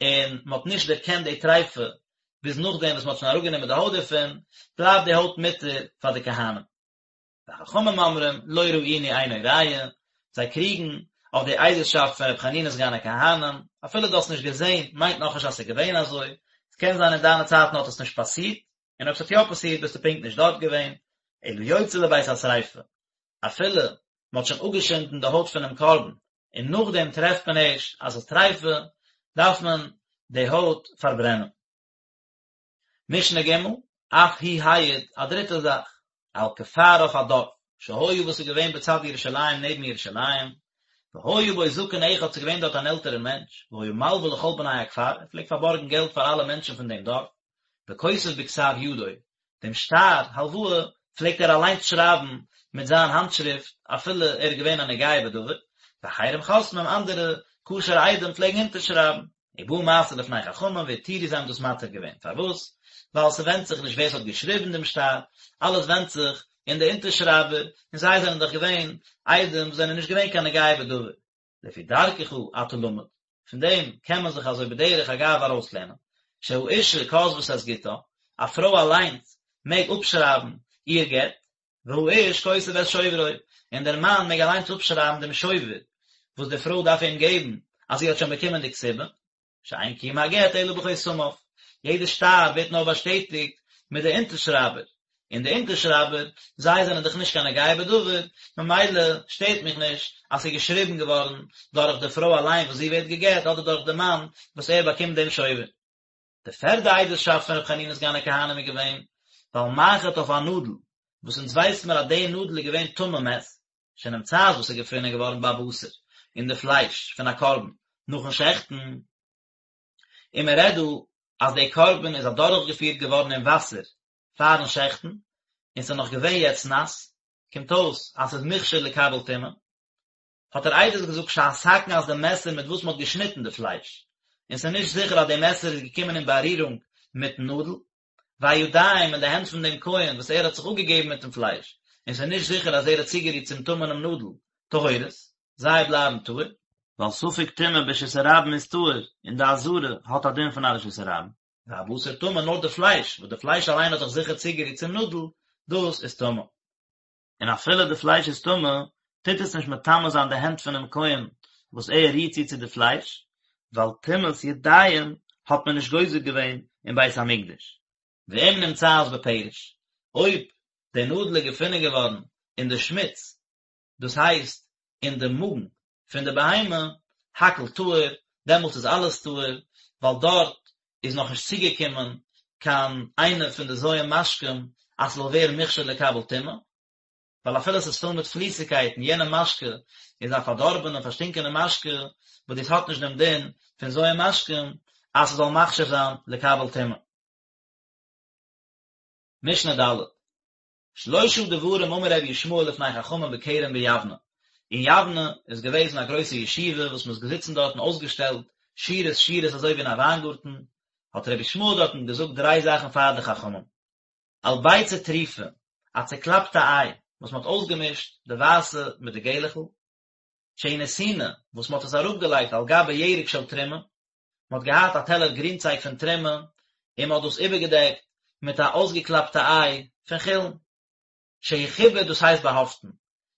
און מען האט נישט דערקענט די טריפה ביז נאכדעם וואס מען האט שוין אראפגענומען די הויט דערפון, בלייבט די הויט מותר פאר די כהנים. וחכמים אומרים, לא ראינו אינו ראיה, זיי קריגן אויף די עדות'שאפט פון ר' חנינא סגן הכהנים, אפילו דו האסט נישט געזען מיינט נאכנישט אז ס'איז געווען אזוי, ס'קען זיין אין דיינע צייטן האט עס נישט פאסירט, און אויב ס'האט יא פאסירט ביסטו פונקט נישט דארט געווען, אלא יוצא לבית השריפה, אפילו מ'האט שוין אפגעשינדן די הויט פונעם קרבן און נאכדעם טרעפט מען ערשט אז ס'איז טריפה, דארף מען די הויט פארברענען. משנה ג', אף הוא העיד, א דריטע זאך, על כפר אויף א דארף, שהיה וואס איז געווען בצד ירושלים נעבן ירושלים, והיה בו זקן אחד ס'איז געווען דארט אן עלטערער מענטש, והיה מלווה לכל בני הכפר, ער פלעגט פארבארגן געלט פאר אלע מענטשן פון דעם דארף, וכותב בכתב ידו, דעם שטר הלוואה פלעגט ער אליינס שרייבן מיט זיין האנטשריפט אפילו ער איז געווען א נוגע בדבר, ואחרים חותמים, אנדערע כשר'ע עדים פלעגן אונטערשרייבן. ובא מעשה לפני חכמים והתירו זיי האבן דאס מתיר געווען, פארוואס? ווייל ס'ווענדט זיך נישט ווער ס'האט געשריבן דעם שטר, אלעס ווענדט זיך אין די אונטערשרייבער, און זיי זענען דאך געווען עדים וואס זענען נישט געווען קיין נוגע בדבר. לפי דרכך אתה למד, פון דעם קען מען זיך אזוי בדרך אגב ארויסלערנען, שהאשה כותבת את גיטה, א פרוי אליינס מעג אפשרייבן איר גט, והאיש כותב את שוברו, און דער מאן מעג אליינס אפשרייבן דעם שובר וואס די פרוי דארף אים געבן אז זי האט שוין באקומען די כתובה, שאין קיום הגט אלא בחותמיו, יעדע שטר ווערט נאר באשטעטיגט מיט די אונטערשרייבער, און די אונטערשרייבער, זיי זענען דאך נישט קיין נוגע בדבר, ממילא שטערט מיך נישט אז ס'איז געשריבן געווארן דורך די פרוי אליין וואס זי ווערט גע'גט אדער דורך די מאן וואס ער באקומט דעם שובר. די פערדע עדות'שאפט פון ר' חנינא סגן הכהנים איז געווען, ועל מחט אויף א נאדל, וואס אונז ווייסט מיר אז די נאדל איז געווען טמא מת, שנמצאת וואס איז געפונען געווארן בבשר, אין די פלייש פון א קרבן, נאכן שעכטן, און מען רעדט דא אז די קרבן איז אדורכגעפירט געווארן אין וואסער פארן שעכטן, און ס'איז נאך געווען יעצט נאס, קומט אויס אז ס'איז מוכשר לקבל טומאה, האט ער עדות געזאגט שהסכין אז די מעסער מיט וואס מ'האט געשניטן די פלייש, און ס'איז נישט זיכער אז די מעסער איז געקומען אין בארירונג מיטן נאדל, והידיים און די הענט פון דעם כהן וואס ער האט זיך אפגעגעבן מיטן פלייש, און ס'איז נישט זיכער אז ער האט צוגערירט צום טמא'נעם נאדל, טהורות, זיי בלייבן טהור. ווייל ספק טומאה ברשות הרבים איז טהור, און די עזרה האט א דין פון א רשות הרבים. והבשר טמא נאר די פלייש, וואס די פלייש אליין האט זיך זיכער צוגערירט צום נאדל, דאס איז טמא. און אפילו די פלייש איז טמא, טוט עס נישט מטמא זיין די הענט פונעם כהן וואס ער רירט צו צו די פלייש, ווייל טומאת ידיים האט מען נישט גוזר געווען אין בית המקדש. ואם נמצאת בפרש, אויב די נאדל איז געפונען געווארן אין די שמוץ, דאס הייסט אין די מאגן פון די בהמה, הכל טהור, דעמאלטס איז אלעס טהור, ווייל דארט איז נאכנישט צוגעקומען קיין איינע פון די ז' משקים אז ס'זאל ווערן מוכשר לקבל טומאה, ווייל אפילו ס'איז פול מיט פליסיגקייטן, יענע משקה איז א פארדארבענע פארשטינקענע משקה, וואס דאס האט נישט דעם דין פון ז' משקים אז ס'זאל מכשיר זיין לקבל טומאה. משנה ד'. שלושה דברים אמר רבי ישמעאל לפני חכמים בכרם ביבנה, אין יבנה איז געוועזן א גרויסע ישיבה וואס מ'איז געזיצן דארטן אויסגעשטעלט שורות שורות אזוי ווי אין א וויינגארטן, האט רבי ישמעאל דארטן געזאגט דריי זאכן פאר די חכמים, על ביצה טרופה, א צעקלאפטע איי וואס מ'האט אויסגעמישט די ווייסע מיט די געלעכל, שהיא נתונה, וואס מ'האט עס אראפגעלייגט על גבי ירק של תרומה, מען האט געהאט א טעלער גרינצייג פון תרומה, און מען האט דאס איבערגעדעקט מיט א אויסגעקלאפטע איי פון חולין. שהוא חיבור דאס הייסט באהאפטן,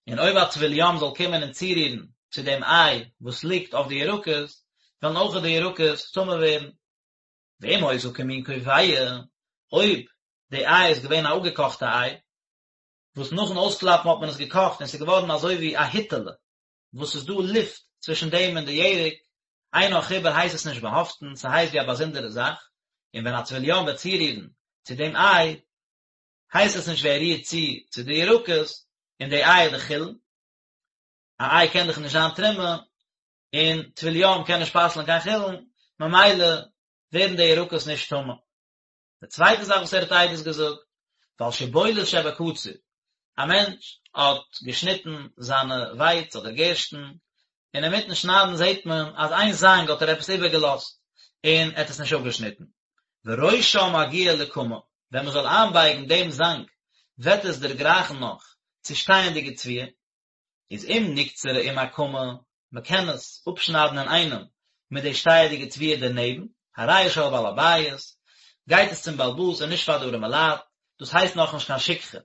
און אויב א טבול יום זאל קומען און צורירן צו דעם איי וואס ליגט אויף די ירקות, וועלן אויך די ירקות טמא ווערן. ואם היתה כמין כובעה, אויב די איי איז געווען א אפגעקאכטע איי. וואס נאכן אויסקלאפן האט מען עס געקאכט און ס'איז געווארן אזוי ווי א היטעלע, וואס ס'איז דא לופט צווישן דעם און די ירק, אינו חיבור הייסט עס נישט באהאפטן, ס'הייסט ווי א באזונדערע זאך, און ווען א טבול יום וועט צורירן צו דעם איי, הייסט עס נישט ווי ער רירט צו צו די ירקות, און די איי איז דאך חולין, א איי קען דאך נישט זיין תרומה, און טבול יום קען נישט פסל'ן קיין חולין, ממילא ווערן די ירקות נישט טמא. די צווייטע זאך וואס ער האט עדות געזאגט, ועל שיבולת שבקציר, א מענטש האט געשניטן זיינע ווייץ אדער גערשטן, און אינמיטן שניידן זעט מען אז איין זאנג האט ער עפעס איבערגעלאזט און ער האט עס נישט אפגעשניטן. וראשה מגיע לקמה, ווען מען זאל איינבייגן דעם זאנג וועט עס דערגרייכן נאך צו שטייענדיגע תבואה, איז אם נקצרה עם הקמה, מען קען עס אפשניידן אינאיינעם מיט די שטייעדיגע תבואה דערנעבן, הרי היא של בעל הבית, גייט עס צום בעל הבית און נישט פאר די ארימע לייט, דאס הייסט נאכנישט קיין שכחה.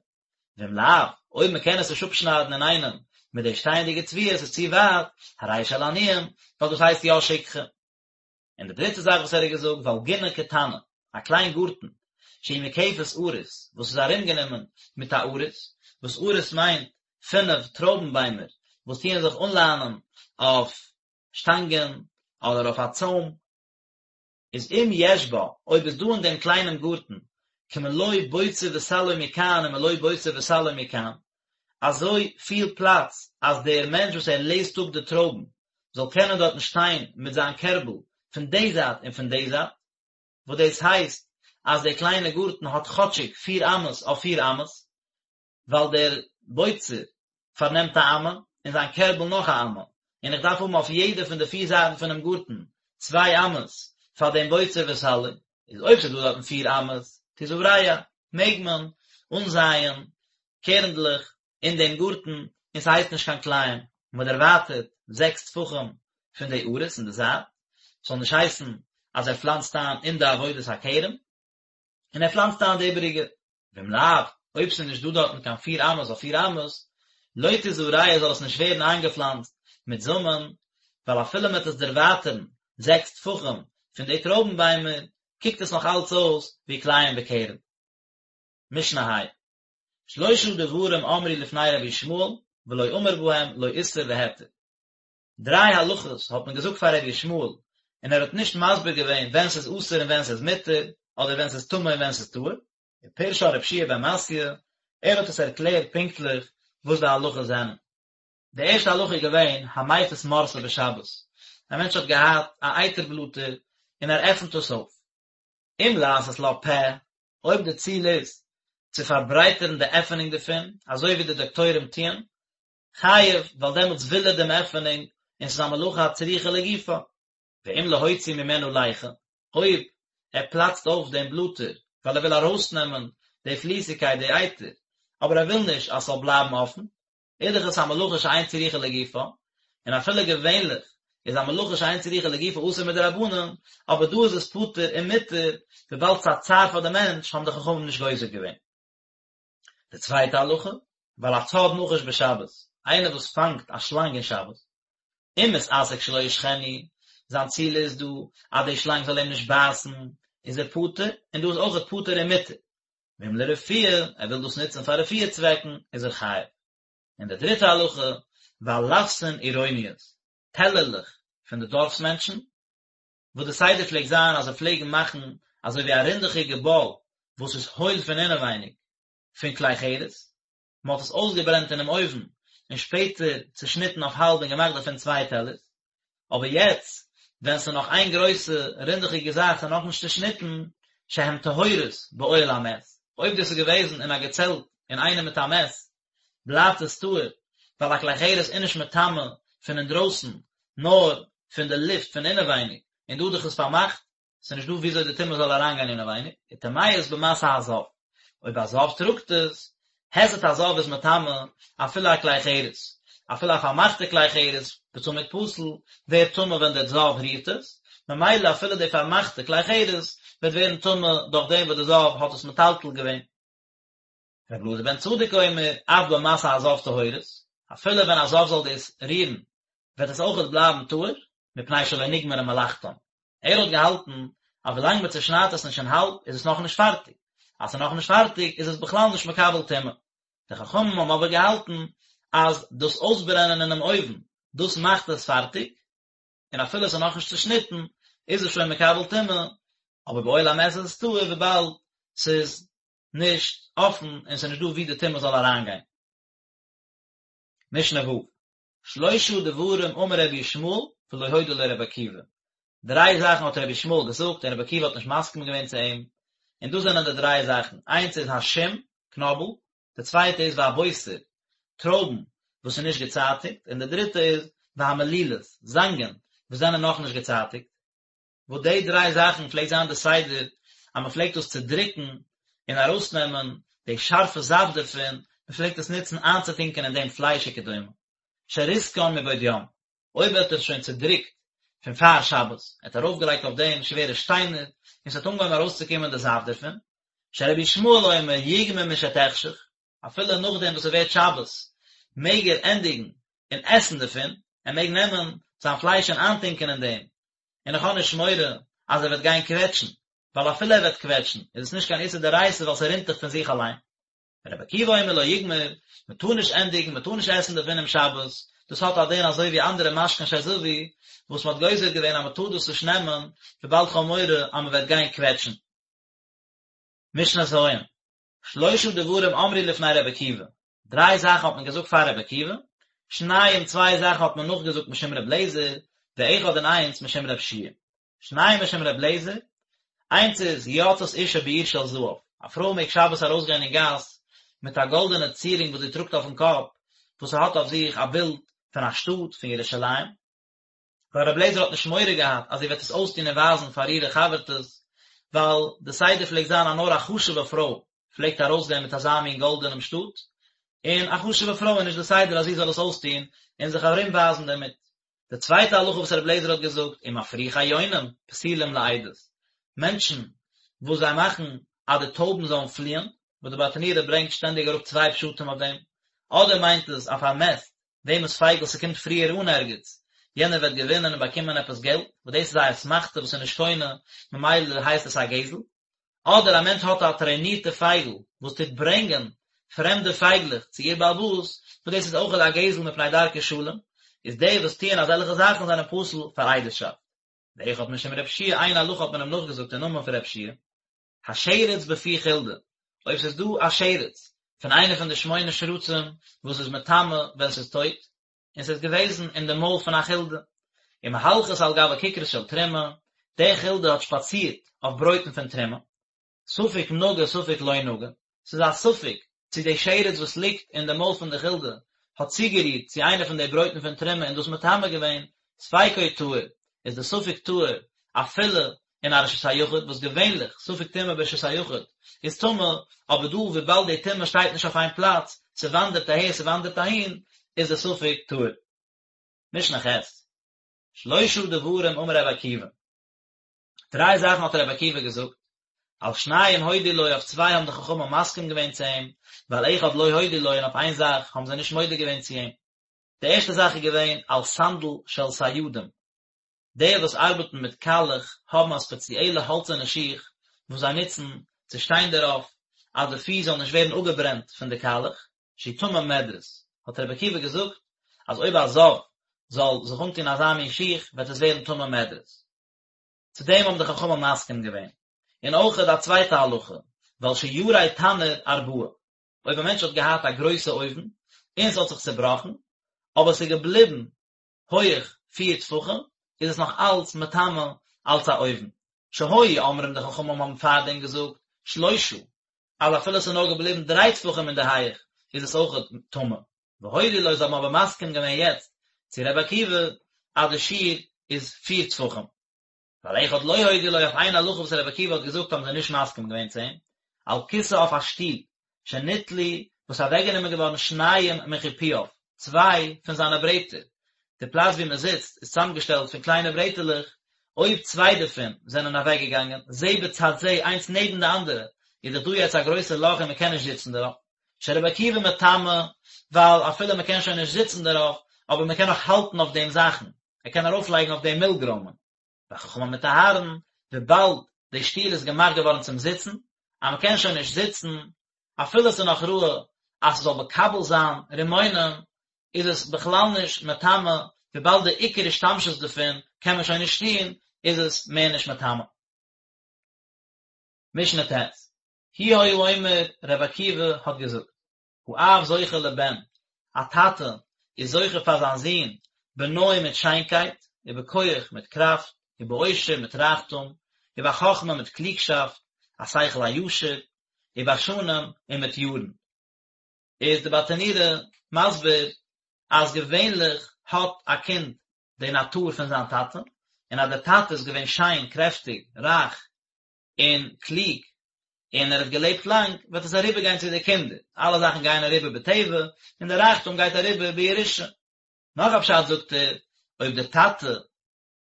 ואם לאו, אויב מען קען עס נישט אפשניידן אינאיינעם מיט די שטייענדיגע תבואה, עס איז צו ווייט, הרי היא של עניים, ווייל דאס הייסט יא שכחה. און די דריטע זאך וואס ער האט געזאגט, ועל גינה קטנה, א קליין גארטן, שהיא מוקפת עריס, וואס איז ארומגענומען מיט א עריס, וואס עריס מיינט פינף טרויבן ביימער וואס טוען זיך אנליינען אויף שטאנגען אדער אויף א צוים, איז אם יש בה, אויב איז דא אין דעם קליינעם גארטן, כמלוא בוצר וסלו מכאן ומלוא בוצר וסלו מכאן, אזוי פיל פלאץ אז דער מענטש וואס ער לעזט אפ די טרויבן זאל קענען דארטן שטיין מיט זיין קערבל פון די זייט און פון די זייט, וואס דאס הייסט אז דער קליינע גארטן האט כאטשיג פיר אמות אויף פיר אמות, ווייל דער בוצר פארנעמט א אמה און זיין קערבל נאך א אמה, און איך דארף האבן אויף יעדע פון די פיר זייטן פונעם גארטן צוויי אמות פאר דעם בוצר וסלו, איז אויב ס'איז דא דארטן פיר אמות, תזרע, מעג מען אנזייען קערנדלעך אין דעם גארטן און ס'הייסט נישט קיין כלאים, מען דערווייטערט זעקס טפחים פון די עריס אין די זייט, ס'זאל נישט הייסן אז ער פלאנצט איין אין די עבודת הכרם, און ער פלאנצט איין די איבעריגע. ואם לאו, אויב ס'איז נישט דא דארטן קיין פיר אמות אויף פיר אמות, לא תזרע זאל עס נישט ווערן איינגעפלאנצט מיט זאמען, ווייל אפילו מ'וועט עס דערווייטערן זעקס טפחים פון די טרויבן ביימער, קוקט עס נאך אלץ אויס ווי כלאים בכרם. משנה ה'. שלשה דברים אמרו לפני רבי ישמעאל, ולא אמר בהם לא איסור והיתר. דריי הלכות האט מען געזאגט פאר רבי ישמעאל, און ער האט נישט מסביר געווען ווען ס'איז אסור און ווען ס'איז מותר, אדער ווען ס'איז טמא און ווען ס'איז טהור. ופירשן רבי יהושע בן מתיא, ער האט עס ערקלערט פונקטליך וואס די הלכות זענען. די ערשטע הלכה איז געווען המפיס מורסא בשבת, א מענטש האט געהאט א אייטער בלאטער און ער עפנט עס אויף, אם לעשות לה פה, אויב די ציל איז צו פארברייטערן די עפענונג דערפון, אזוי ווי די דאקטוירים טוען, חייב, ווייל דעמאלטס וויל ער דעם עפענונג, און ס'איז א מלאכה הצריכה לגופה. ואם להוציא ממנה ליחה, אויב ער פלאצט אויף דעם בלאטער ווייל ער וויל ארויסנעמען די פליסיגקייט, די אייטער, אבער ער וויל נישט אז ס'זאל בלייבן אפן, איז דאך עס א מלאכה שאין צריכה לגופה, און אפילו געווענליך איז א מלאכה שאין צריכה לגופה אסור מדרבנן, אבער דא איז עס פטור און מותר, וויבאלד ס'איז א צער פאר די מענטש האבן די חכמים נישט גוזר געווען. די צווייטע הלכה, ועל הצד נחש בשבת, איינער וואס פאנגט א שלאנג אין שבת, אם מתעסק שלא ישכנו, זיין ציל איז דא אז די שלאנג זאל אים נישט בייסן, איז ער פטור, און דא איז אויכעט פטור און מותר. ואם לרפואה, ער וויל דאס נוצן פאר רפואה צוועקן, איז ער חייב. און די דריטע הלכה, ועל לפסין עירוניות, טעלערלעך פון די דארפס מענטשן, וואס די סדר פלעגט זיין אז זיי פלעגן מאכן אזוי ווי א רינדעכיגע באל וואס איז הויל פון אינעווייניג פון כלי חרס, מען האט עס אויסגעברענט אינעם אויוון און שפעטער צושניטן אויף האלב און געמאכט דערפון צוויי טעלערס, אבער יעצט ווען ס'איז נאך איין גרויסע רינדעכיגע זאך ס'איז נאכנישט צושניטן, שהן טהורות באוהל המת, אויב דאס איז געוועזן אין א געצעלט אינאיינעם מיט א מת, בלייבט עס טהור, ווייל א כלי חרס איז נישט מטמא פון אינדרויסן, נאר פון די לופט פון אינעווייניג, און דא דאך איז פארמאכט, ס'איז נישט דא וויאזוי די טומאה זאל אריינגיין אינעווייניג, וטמאות במשא הזב, אויב א זב טראגט עס, היסט הזב איז מטמא אפילו א כלי חרס, אפילו א פארמאכטע כלי חרס בצמיד פתיל ווערט טמא ווען דער זב רירט עס, ממילא אפילו די פארמאכטע כלי חרס וועט ווערן טמא דורך דעם וואס די זב האט עס מטלטל געווען. רבי אלעזר בן צדוק אומר, אף במשא הזב טהורות, אפילו ווען א זב זאל דאס רירן וועט עס אויכעט בלייבן טהור, מפני שלא נגמרה מלאכתם. ער האט געהאלטן אז ווילאנג מען צושניידט עס נישט אין האלב איז עס נאכנישט פארטיג, אז ס'איז נאכנישט פארטיג איז עס בכלל נישט מקבל טומאה. די חכמים האבן אבער געהאלטן אז דאס אויסברענען אינעם אויוון, דאס מאכט עס פארטיג, און אפילו עס איז נאכנישט צושניטן, איז עס שוין מקבל טומאה, אבער באוהל המת איז עס טהור וויבאלד ס'איז נישט אפן און ס'איז נישט דא וואו די טומאה זאל אריינגיין. משנה ו', שלושה דברים אמר רבי ישמעאל ולא הודה לו רבי עקיבא, דריי זאכן האט רבי ישמעאל געזאגט און רבי עקיבא האט נישט מסכים געווען צו אים, און דאס זענען די דריי זאכן, איינס איז השום, קנאבל, די צווייטע איז והבוסר, טרויבן וואס איז נישט געצייטיגט, און די דריטע איז והמלילות, זאנגען וואס זענען נאכנישט געצייטיגט. וואס די דריי זאכן פלעגט זיין די סדר אז מען פלעגט דאס צודריקן און ארויסנעמען די שארפע זאפט דערפון, מען פלעגט עס נוצן איינצוטונקען אין דעם פלייש וכדומה. שריסקן מבעוד יום, אויב ער האט עס שוין צודריקט פון פאר שבת, ער האט ארויפגעלייגט אויף דעם שווערע שטיינער און ס'האט אנגעהויבן ארויסצוקומען די זאפט דערפון, שרבי ישמעאל אומר יגמור משתחשך, אפילו נאכדעם וואס ס'ווערט שבת מעג ער ענדיגן און עסן דערפון, ער מעג נעמען זיין פלייש און איינטונקען אין דעם, און איך האב נישט מורא אז ער וועט גיין קוועטשן, ווייל אפילו ער וועט קוועטשן איז עס נישט קיין איסור דאורייתא ווייל ס'רינט דאך פון זיך אליין. רבי עקיבא אומר לא יגמור, מען טאר נישט ענדיגן, מען טאר נישט עסן דערפון אום שבת, דאס האט א דין אזוי ווי אנדערע משקין שזבו, וואס מען האט גוזר געווען אז מען טאר דאס נישט נעמען, וויבאלד כ'האב מורא אז מען וועט גיין קוועטשן. משנה ז', שלושה דברים אמרו לפני רבי עקיבא, דריי זאכן האט מען געזאגט פאר רבי עקיבא, שניים צוויי זאכן האט מען נאכגעזאגט משום רבי אליעזר, ואחד און איינס משום רבי יהושע. שניים משום רבי אליעזר, איינס איז יוצאת אשה בעיר של זהב, א פרוי מעג שבת ארויסגיין אין גאס מיט א גאלדענע צירונג וואס זי טראגט אויפן קאפ, וואס ס'האט אויף זיך א בילד פון א שטאט, פון ירושלים, ווייל רבי אליעזר האט נישט מורא געהאט אז זי וועט עס אויסטון און ווייזן פאר אירע חבר'טעס, ווייל די סדר פלעגט זיין אז נאר א חשוב'ע פרוי פלעגט ארויסגיין מיט אזא מין גאלדענעם שטאט, און א חשוב'ע פרוי איז נישט די סדר אז זי זאל עס אויסטון און זיך ארומווייזן דערמיט. די צווייטע הלכה וואס רבי אליעזר האט געזאגט, ומפריחי יונים פסולים לעדות, מענטשן וואס זיי מאכן אז די טויבן זאלן פליען, וואס די ברטנורא ברענגט שטענדיג אראפ צוויי פשטים אויף דעם, אדער מיינט עס א פארמעסט וועמענס פייגל ס'קומט פריער אן ערגעץ, יענער וועט געווינען און באקומען עפעס געלט, וואס דאס איז א אסמכתא וואס איז נישט קונה, ממילא הייסט עס א גזל. אדער א מענטש האט א טרענירטע פייגל וואס טוט ברענגען פרעמדע פייגלעך צו איר בעל הבית, וואס דאס איז אויכעט א גזל מפני דרכי שלום, איז די וואס טוען אזעלכע זאכן זענען פסול פאר עדות'שאפט. ואחד משום רב שיע איין הלכה האט מען אים נאכגעזאגט אין נאמען פון רב שיע, השרץ בפי חולדה, אויב ס'איז דא א שרץ פון איינע פון די שמונה שרצים וואס איז מטמא ווען ס'איז טויט, און ס'איז געוועזן אין די מויל פון א חולדה, ומהלכת על גבי כיכרות של תרומה, די חולדה האט שפאצירט אויף ברויטן פון תרומה, ספק נגע ספק לא נגע, ס'איז א ספק צו די שרץ וואס ליגט אין די מויל פון די חולדה האט צוגערירט צו איינע פון די ברויטן פון תרומה און דאס מטמא געווען, ספיקו טהור, איז די ספק טהור אפילו אין א רשות היחיד, וואס געווענליך ספק טומאה ברשות היחיד איז טמא, אבער דא וויבאלד די טומאה שטייט נישט אויף איין פלאץ, ס'וואנדערט אהער ס'וואנדערט אהין, איז די ספק טהור. משנה ח', שלושה דברים אמר רבי עקיבא, דריי זאכן האט רבי עקיבא געזאגט, על שניים הודו לו אויף צוויי האבן די חכמים מסכים געווען צו אים, ועל אחד לא הודו לו און אויף איין זאך האבן זיי נישט מודה געווען צו אים. די ערשטע זאך איז געווען על סנדל של סיידים, די וואס ארבעטן מיט קאלעך האבן א ספעציעלע האלצערנע שיך וואס זיי נוצן צו שטיין דערויף אז די פיס זאל נישט ווערן אפגעברענט פון די קאלעך, שהוא טמא מדרס, האט רבי עקיבא געזאגט אז אויב א זב זאל זיך אנטון אזא מין שיך וועט עס ווערן טמא מדרס. צו דעם האבן די חכמים מסכים געווען. און אויכעט א צווייטע הלכה, ועל שיירי תנור ארבעה, אויב א מענטש האט געהאט א גרויסע אויוון און ס'האט זיך צעבראכן, אבער ס'איז געבליבן הויעך פיר טפחים, איז עס נאך אלץ מטמא אלץ א אויוון. שהיו אומרים די חכמים האבן פארדעם געזאגט שלושה, אז אפילו ס'איז נאר געבליבן דריי טפחים אין די הייעך איז עס אויכעט טמא. והודו לו זיי האבן אבער מסכים געווען יעצט צו רבי עקיבא אז די שיעור איז פיר טפחים. ועל אחד לא הודו לו אויף איין הלכה וואס רבי עקיבא האט געזאגט האבן זיי נישט מסכים געווען צו אים, על כסא אויף א שטול, שניטלו, וואס איז אוועקגענומען געווארן שניים מחיפויו, צוויי פון זיינע ברעטער, די פלאץ וואו מען זיצט איז צוזאמגעשטעלט פון קליינע ברעטעלעך, אויב צוויי דערפון זענען אוועקגעגאנגען, זה בצד זה, איינס נעבן די אנדערע, איז דאך דא יעצט א גרויסע לאך און מען קען נישט זיצן דערויף. שרבי עקיבא מטמא, ווייל אפילו מען קען שוין נישט זיצן דערויף, אבער מען קען נאך האלטן אויף דעם זאכן, ער קען ארויפלייגן אויף דעם מילגרוימען. וחכמים מטהרין, וויבאלד די שטול איז געמאכט געווארן צום זיצן, אז מען קען שוין נישט זיצן, אפילו עס איז נאך ראוי. אז ס'זאל מקבל זיין רימונים, איז עס בכלל נישט מטמא, וויבאלד די עיקר השתמשות דערפון קען מען שוין נישט טון, איז עס מער נישט מטמא. משנה ט', הוא היה אומר, רבי עקיבא האט געזאגט, האב זוכה לבן, א טאטע איז זוכה פאר זיין זון, בנוי מיט שיינקייט, ובכח מיט קראפט, ובעושר מיט רייכטום, ובחכמה מיט קלוגשאפט, א שכל הישר, ובשנים און מיט יארן. איז די ברטנורא מסביר אז געווענליך האט א קינד די נאטור פון זיין טאטע, און אז דער טאטע איז געווען שיין, קרעפטיג, רייך, און קלוג, און ער האט געלעבט לאנג, וועט עס אריבערגיין צו די קינדער, אלע זאכן גייען אריבער בטבע, און די רייכטום גייט אריבער בירושה. נאך א פשט זאגט ער, אויב דער טאטע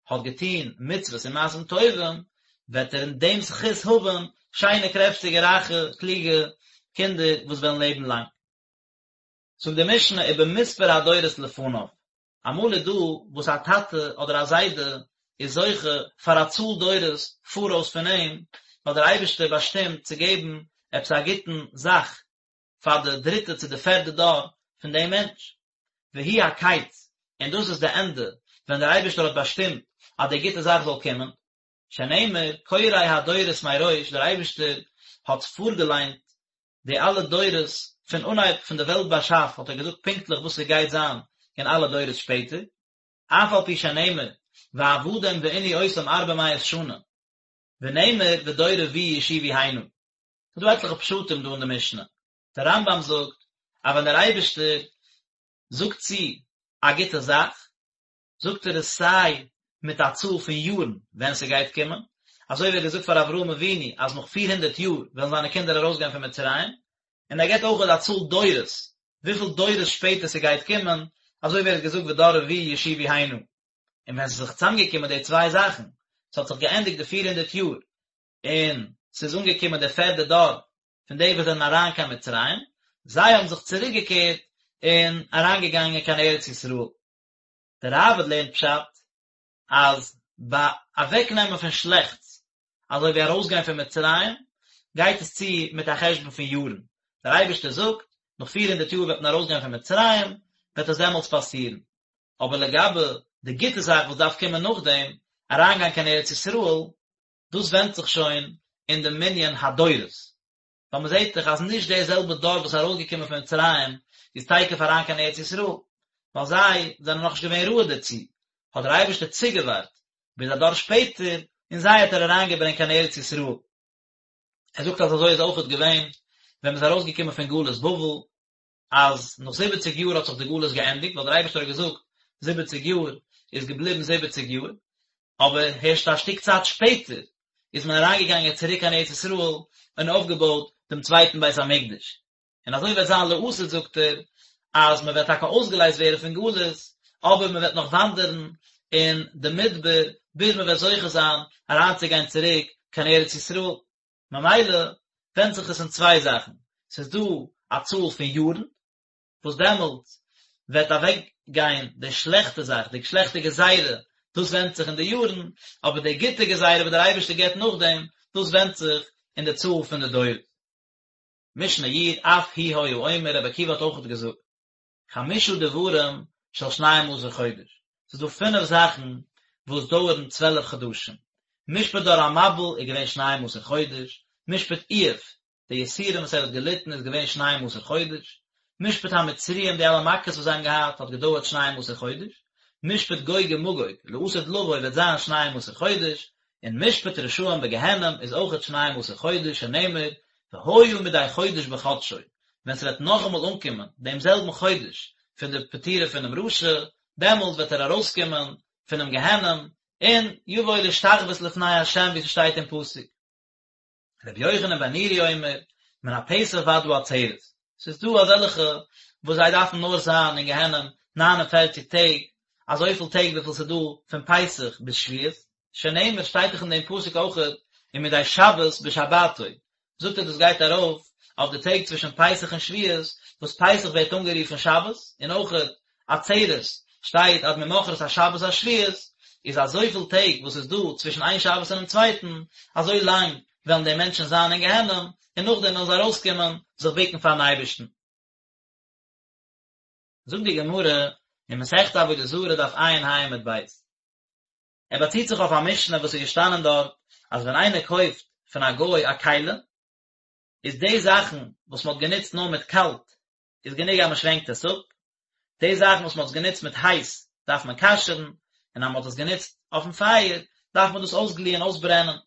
האט געטון מצוות און מעשים טובים, וועט ער אין דעם זכות האבן שיינע קרעפטיגע רייכע קלוגע קינדער וואס וועלן לעבן לאנג. זאגט די משנה ובמספר הדורות לפניו, אמאל איז דא וואס א טאטע אדער א זיידע איז זוכה פאר א צאל דורות פאראויס פון אים, ווייל דער אייבערשטער באשטימט צו געבן עפעס א גוטן זאך פאר די דריטע צו די פערדע דור פון דעם מענטש. והוא הקץ, און דאס איז די ענדע, ווען דער אייבערשטער האט באשטימט אז די גוטע זאך זאל קומען. שנאמר, קורא הדורות מראש, דער אייבערשטער האט פארגעליינט די אלע דורות פון אנהייב פון די וועלט באשאף האט ער געזאגט פונקטליך וואס ס'גייט זיין אין אלע דורות שפעטער, אף על פי שנאמר ועבדום וענו אותם ארבע מאות שנה, ונאמר ודור רביעי ישובו הנה. ס'איז דא עטליכע פשטים דא אין די משנה. דער רמב"ם זאגט אז ווען דער אייבערשטער זאגט צו א גוטע זאך, זאגט ער עס סיי מיט א צאל פון יארן ווען ס'גייט קומען, אזוי ווי ער האט געזאגט פאר אברהם אבינו אז נאך פיר הונדערט יאר וועלן זיינע קינדער ארויסגיין פון מצרים, און ער געבט אויך א צאל דורות, וויפיל דורות שפעטער ס'גייט קומען, אזוי ווי ער האט געזאגט ודור רביעי ישובו הנה. און ווען ס'איז זיך צוזאמגעקומען די צוויי זאכן, ס'האט זיך געענדיגט די פיר הונדערט יאר, און ס'איז אנגעקומען דער פערדע דור פון די וואס זענען אריין קיין מצרים, זיי האבן זיך צוריקגעקערט און אריינגעגאנגען קיין ארץ ישראל. דער ראב"ד לערנט פשט אז ביי אוועקנעמען פון שלעכטס, אזוי ווי ארויסגיין פון מצרים, גייט עס צו מיט א חשבון פון יארן, דער אייבערשטער זאגט, נאך פיר הונדערט יאר וועט מען ארויסגיין פון מצרים, וועט עס דעמאלטס פאסירן. אבער לגבי די גוטע זאך וואס דארף קומען נאכדעם, אריינגיין קיין ארץ ישראל, דאס ווענדט זיך שוין אין די מנין הדורות, ווייל מען זעט דאך אז נישט דער זעלבער דור וואס איז ארויסגעקומען פון מצרים איז תיכף אריין קיין ארץ ישראל, ווייל זיי זענען נאכנישט געווען ראוי דערצו, האט דער אייבערשטער צוגעווארט ביז א דור שפעטער און זיי האט ער אריינגעברענגט קיין ארץ ישראל. ער זאגט אז אזוי איז אויכעט געווען ווען מען איז ארויסגעקומען פון גלות בבל, אז נאך זיבעציג יאר האט זיך די גלות געענדיגט, ווייל דער אייבערשטער האט געזאגט זיבעציג יאר איז געבליבן זיבעציג יאר, אבער הערשט א שטיק צייט שפעטער איז מען אריינגעגאנגען צוריק קיין ארץ ישראל און אויפגעבויט דעם צווייטן בית המקדש. און אזוי וועט זיין לעתיד זאגט ער, אז מען וועט טאקע אויסגעלייזט ווערן פון גלות, אבער מען וועט נאך וואנדערן אין די מדבר ביז מען וועט זוכה זיין אריינצוגיין צוריק קיין ארץ ישראל. ממילא ווענדט זיך עס אין צוויי זאכן, ס'איז דא א צאל פון יארן, וואס דעמאלט וועט אוועק גיין די שלעכטע זאך, די שלעכטע גזירה, דאס ווענדט זיך אין די יארן, אבער די גוטע גזירה וואס דער אייבערשטער געבט נאכדעם, דאס ווענדט זיך אין די צאל פון די דורות. משנה י', אף הוא היה אומר, רבי עקיבא האט אויכעט געזאגט, חמשה דברים של שנים עשר חודש, ס'איז דא פינף זאכן וואס דויערן צוועלף חדשים, משפט דור המבול איז געווען שנים עשר חודש, משפט איוב, די יסורים וואס ער האט געליטן איז געווען שנים עשר חודש, משפט המצריים די אלע מכות וואס זיי האבן געהאט האט געדויערט שנים עשר חודש, משפט גוג ומגוג, לעתיד לבוא וועט זיין שנים עשר חודש, און משפט רשעים בגיהנום איז אויכעט שנים עשר חודש שנאמר והיה מדי חודש בחדשו, ווען ס'וועט נאכאמאל אנקומען דעם זעלבן חודש פון די פטירה פונעם רשע, דעמאלט וועט ער ארויסקומען פונעם גיהנום, און יבוא להשתחוות לפני ה' ווי ס'שטייט אין פסוק. רבי יוחנן בן נורי אומר, מן הפסח ועד העצרת, ס'איז דא אזעלכע וואס זיי דארפן נאר זיין אין גיהנום 49 טעג, אזויפיל טעג וויפיל ס'איז דא פון פסח ביז שבועות, שנאמר שטייט דאך אין דעם פסוק אויכעט ומדי שבת בשבתו, זאגט ער דאס גייט ארויף אויף די טעג צווישן פסח און שבועות, וואס פסח ווערט אנגערופן שבת, און אויכעט עצרת שטייט עד ממחרת השבת השביעית, איז אזויפיל טעג וואס איז דא צווישן איין שבת און דעם צווייטן, אזוי לאנג וועלן די מענטשן זיין אין גיהנום, און נאכדעם וועלן זיי ארויסקומען זיך בוקן פארן אייבערשטן. זאגט די גמרא אין מסכת עבודה זרה דף ע"ה עמוד ב', ער באציט זיך אויף א משנה וואס איז געשטאנען דארט אז ווען איינער קויפט פון א גוי א כלי, איז די זאכן וואס מען האט גענוצט נאר מיט קאלט איז גענוג אז מען שווענקט עס אפ, די זאכן וואס מען האט עס גענוצט מיט הייס דארף מען כשר'ן, און אז מען האט עס גענוצט אויפן פייער דארף מען דאס אויסגליען אויסברענען.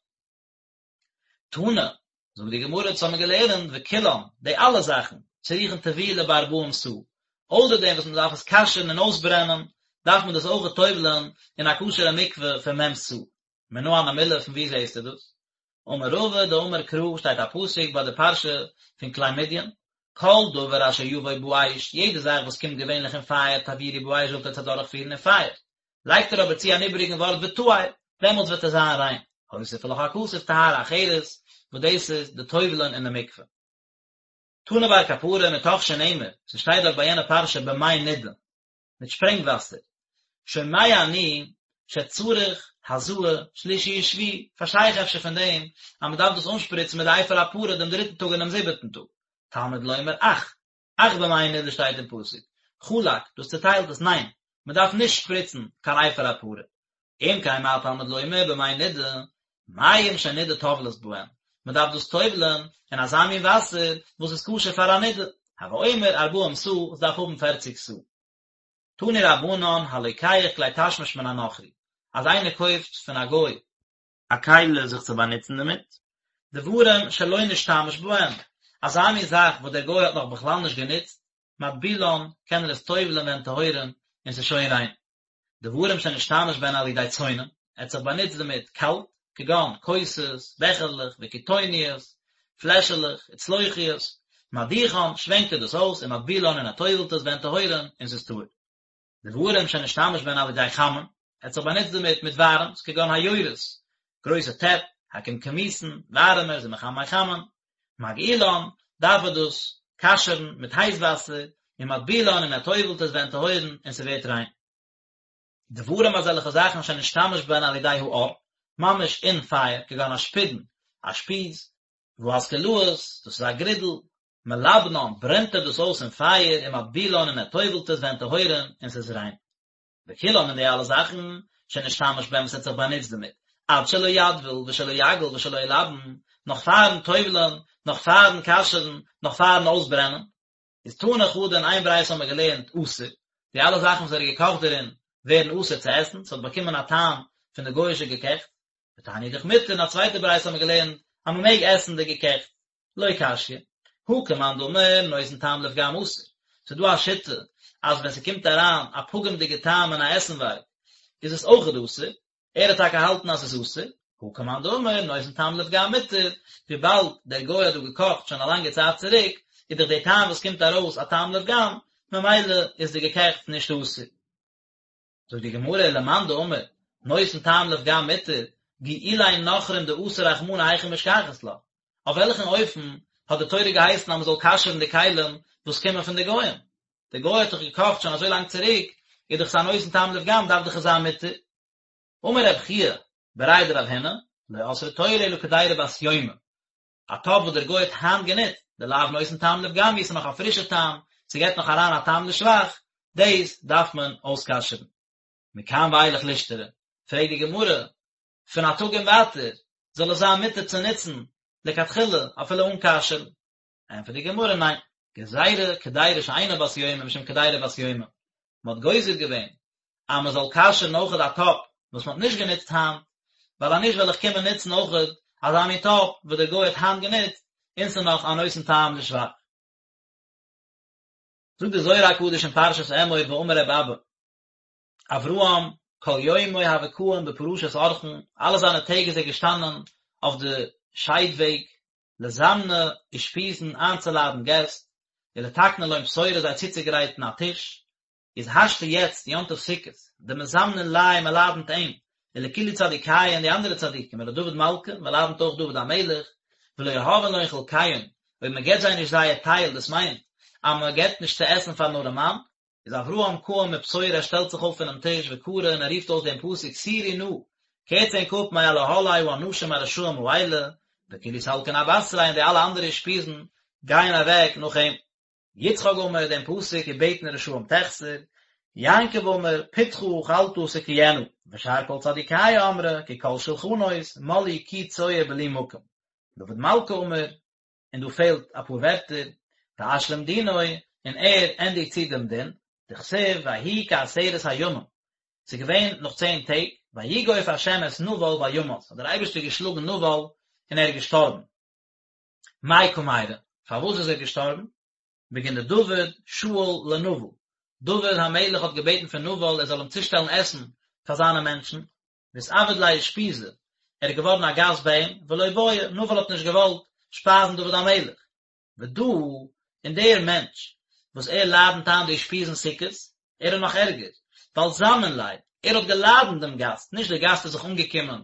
תנא, זאגט די גמרא, דאס האבן מיר געלערנט, וכולן, די אלע זאכן, צריכין טבילה בארבעים סאה, אויסער דעם וואס מען דארף עס כשר'ן און אויסברענען, דארף מען דאס אויך טובל'ען אין א כשר'ע מקווה פון מ' סאה. מנא הני מילי, פון וואו זעסטו דאס? אמר רבא דאמר קרא, שטייט א פסוק ביי די פרשה פון כלי מדין, כל דבר אשר יבוא באש, יעדע זאך וואס קומט געווענליך אין פייער, תעבירו באש זאלט עטס אדורכפירן אין פייער. לייגט ער אבער צו אן איבעריגן ווארט וטהר, דעמאלטס וועט עס זיין ריין. הוסיף לך הכתוב טהרה אחרת, וואס דאס איז די טובל'ען אין די מקווה. תני בר קפרא מתוך שנאמר, ס'שטייט דארט ביי יענע פרשה במי נידה, מיט שפרענג וואסער. שומע אני שצריך הזאה שלישי ושביעי, פארשטיי איך אפשר פון דעם אז מ'דארף דאס אנשפריצן מיט די אפר הפרה דעם דריטן טאג און דעם זיבעטן טאג. תלמוד לומר אך, אך במי נידה שטייט אין פסוק, חלק, דאס צעטיילט עס, ניין, מען דארף נישט שפריצן קיין אפר הפרה. אם כן מה תלמוד לומר במי נידה, מים שנידה טובלת בהן, מען דארף דאס טובל'ען אין אזא מין וואסער וואס איז כשר פאר א נידה, הוי אומר ארבעים סאה, עס דארף האבן פערציג סאה. תנו רבנן הלוקח כלי תשמיש מן הנכרי, אז איינער קויפט פון א גוי, א כלי זיך צו באנוצן דערמיט. דברים שלא נשתמש בהם, אזא מין זאך וואס דער גוי האט נאך בכלל נישט גענוצט, מטבילן, קען ער עס טובל'ען והן טהורין, און ס'איז שוין ריין. דברים שנשתמש בהן על ידי צונן, ער האט זיך באנוצט דערמיט קאלט, כגון כוסות, בעכערלעך, וקיטוניות, פלעשעלעך, וצלוחיות, מדיחן, שווענקט ער דאס אויס, ומטבילן און ער טובל'ט עס והן טהורין, און ס'איז טהור. דברים שנשתמש בהן על ידי חמין, ער האט זיך באנוצט דערמיט מיט ווארעמס, כגון היורות, גרויסע טעפ, הקומקמוסין, ווארעמערס ומחמי חמין, מגעילן, דארף ער דאס כשר'ן מיט הייס וואסער, ומטבילן און ער טובל'ט עס והן טהורין און ס'ווערט ריין. דברים אזעלכע זאכן שנשתמש בהן על ידי האור, ממש אין פייער, כגון אשפודין, א שפיז, והאסקלאות, דאס איז א גרידל, מלבנן, ברענט ער דאס אויס אין פייער, ומטבילן און ער טובל'ט עס והן טהורין, און ס'איז ריין. וכולן און די אלע זאכן, שנשתמש בהם וואס ער האט זיך באנוצט דערמיט, עד שלא יטביל ושלא יגעיל ושלא ילבן, נאך פארן טובל'ן, נאך פארן כשר'ן, נאך פארן אויסברענען. איז תני חדא אין איין ברייתא האבן מיר געלערנט אסור, די אלע זאכן וואס ער האט געקאכט דערין ווערן אסור צו עסן, ס'האט באקומען א טעם פון די גוי'אישע געקעכטס, ותניא אידך מותר, אין א צווייטע ברייתא האבן מיר געלערנט אז מ'מעג עסן די געקעכטס. לא קשיא, הא כמאן דאמר נותן טעם לפגם אסור, ס'איז דא א שיטה אז ווען ס'קומט אריין א פגם'דיגע טעם אין א עסנווארג איז עס אויכעט אסור, ער האט טאקע געהאלטן אז ס'איז אסור, הא כמאן דאמר נותן טעם לפגם מותר, וויבאלד דער גוי האט דא געקאכט שוין א לאנגע צייט צוריק, איז דאך די טעם וואס קומט ארויס א טעם לפגם, ממילא איז די געקעכטס נישט אסור. זאגט די גמרא ולמאן דאמר נותן טעם לפגם מותר, גיעולי נכרים דאסר רחמנא היכי משכחת לה, אויף וועלכן אופן האט די תורה געהייסן אז מען זאל כשר'ן די כלים וואס קומען פון די גוים? די גוי האט דאך געקאכט שוין אזוי לאנג צוריק, איז דאך עס א נותן טעם לפגם דארף דאך עס זיין מותר. אמר רב חייא בריה דרב הונא, לא אסרה תורה אלא קדירה בת יומא, א טאפ וואס דער גוי האט היינט גענוצט, דלאו נותן טעם לפגם הוא, ס'איז נאך א פרישע טעם, ס'געט נאך אריין א טעם לשבח, דאס דארף מען אויסכשר'ן. מכאן ואילך לישתרי, פרעגט די גמרא, פון א טאג און ווייטער, זאל עס זיין מותר צו נוצן לכתחילה אפילו אן כשר'ן? ענטפערט די גמרא, ניין, גזירה קדירה שאינה בת יומא משום קדירה בת יומא, מען האט גוזר געווען אז מען זאל כשר'ן אויכעט א טאפ וואס מען האט נישט גענוצט היינט, ווייל אז נישט וועל איך קומען נוצן אויכעט אזא מין טאפ וואס דער גוי האט היינט גענוצט, און ס'איז נאך א נותן טעם לשבח. זאגט דער זוהר הקדוש אין פרשת אמור ואמר ר' אבא, אברהם כל יומוי הוה קאים בפרשת אורחין, אלע זיינע טעג איז ער געשטאנען אויף די שיידוועג, לזמנא אושפיזין איינצולאדן געסט, ולתקנא לון פתורא זיי צוצוגרייטן א טיש, איז השתא יעצט יום טוב סוכות, דמזמנין ליה מען לאדענט אים, ולכולהו צדיקיא און די אנדערע צדיקים, ולדוד מלכא, מען לאדענט אויך דוד המלך, ולא יהבין לון חולקיהון, אויב מען געבט זיי נישט זייער טייל, דאס מיינט, אז מען געבט נישט צו עסן פארן ארעמאן, איז אברהם קאים מפתורא ער שטעלט זיך אויף פונעם טיש וקרי און ער רופט אויס דעם פסוק סורו נא, קערטס ענק אפ מעל אהלי האנשים הרשעים האלה, וכולהו סלקין אבתריה און די אלע אנדערע אושפיזין גייען אוועק נאך אים. יצחק אמר דעם פסוק ובטן רשעים תחסר, יעקב אמר פתך אכלת תקיאנה, ושאר כל צדיקיא אמרי כי כל שלחנות מלאו קי צואה בלי מקום. דוד מלכא אמר, און דא פעלט אפאר ווערטער, ואשלים דינו, און ער ענדיגט צו דעם דין, דכתיב ויהי כעשרת הימים, ס'איז געווען נאך צען טעג, ויגוף ה' את נבל וימת, האט דער אייבערשטער געשלאגן נבל און ער איז געשטארבן. מאי קא מיירי, פארוואס איז ער געשטארבן? בגין דדוד שאיל לנבל, דוד המלך האט געבעטן פון נבל ער זאל אים צושטעלן עסן פאר זיינע מענטשן, ואתעביד ליה אושפיזא, ער איז געווארן א גאסט ביי אים, ולא בעי, נבל האט נישט געוואלט שפייזן דוד המלך. ודא, און דער מענטש, וואס ער לאדנט איין די אושפיזין סוכות, ער איז נאך ערגער, ווייל זמין ליה, ער האט געלאדנט דעם גאסט, נישט דער גאסט איז זיך אנגעקומען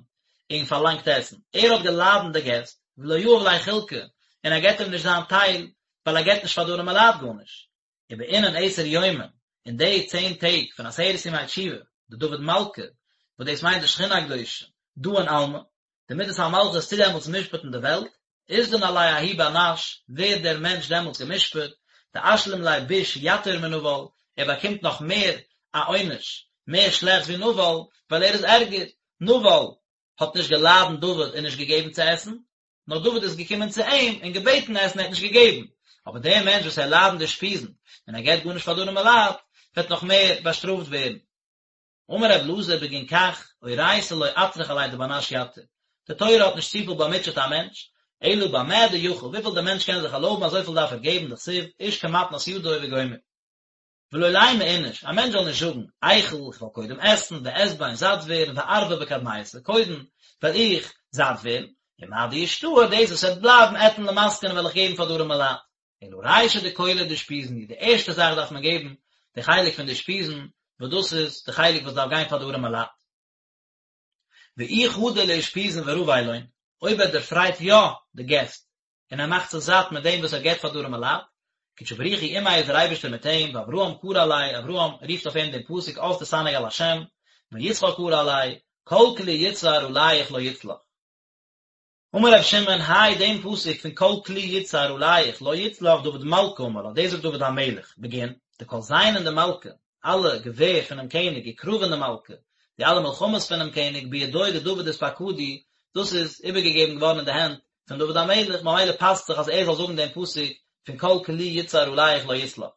און פארלאנגט עסן, ער האט געלאדנט די געסט, ולא יהב ליה חולקא, און ער געבט אים נישט זיין טייל, ווייל ער געבט נישט פאר די ארימע לייט גארנישט. ובאינון עשר יומין, אין די צען טעג פון עשרת ימי תשובה, דדוד מלכא, וואס דאס מיינט די שכינה הקדושה, דאין עלמא, די מידת המלכות טוט דעמאלטס משפט'ן די וועלט, אתדן עליה ההוא בר נש, ווערט דער מענטש דעמאלטס גע'משפט, דאשלים ליה ביש יתיר מנבל, ער באקומט נאך מער א עונש, מער שלעכטס ווי נבל, ווייל ער איז ערגער, נבל האט נישט געלאדנט דוד און נישט געגעבן צו עסן, נאר דוד איז געקומען צו אים און געבעטן עסן ער האט נישט געגעבן, אבער דער מענטש וואס ער לאדנט די אושפיזין און ער געבט גארנישט פאר די ארימע לייט, וועט נאך מער באשטראפט ווערן. אמר רב אלעזר בגין כך, אורייתא לא אטרח עליה דבר נש יתיר, די תורה האט נישט צופיל באמוטשעט א מענטש, אלא במה דיכול, וויפיל דער מענטש קען זיך ערלויבן אזויפיל דארף ער געבן, דכתיב, איש כמתנת ידו וגומר. ולא לימא איניש, א מענטש זאל נישט זאגן, איכול, איך וועל קודם עסן, ואשבע און זאט ווערן, וארוי בקדמיתא, קודם וועל איך זאט ווערן, ומה דישתאר, דאס וואס וועט בלייבן, אתן למסכני וועל איך געבן פאר די ארימע לייט. אלא רישא דכולא דאושפיזין, די ערשטע זאך דארף מען געבן די חלק פון די אושפיזין, וואס דאס איז די חלק וואס דארף גיין פאר די ארימע לייט. ואי חדי לאושפיזין ורוי לון, אויב ער דערפרייט יא די געסט, און ער מאכט זיך זאט מיט דעם וואס ער געבט פאר די ארימע לייט, קודשא בריך הוא עמיה איז דער אייבערשטער מיט אים, ואברהם קרי עליה, אברהם רופט אויף אים דעם פסוק אז תתענג על השם, ויצחק קרי עליה, כל כלי יצהר עליך לא יצלח. אמר רבי שמעון, האי דעם פסוק פון כל כלי יצהר עליך לא יצלח דוד מלכא אמר לה, דאס זאגט דוד המלך, בגין, דכל זיינין דמלכא, אלע געווער פונעם קעניג, וקרבין דמלכא, די אלע מלחמות פונעם קעניג, בידוי דדוד אתפקדו, דאס איז איבערגעגעבן געווארן אין די הענט פון דוד המלך, ממילא פאסט זיך אז ער זאל זאגן דעם פסוק פון כל כלי יצהר עליך לא יצלח.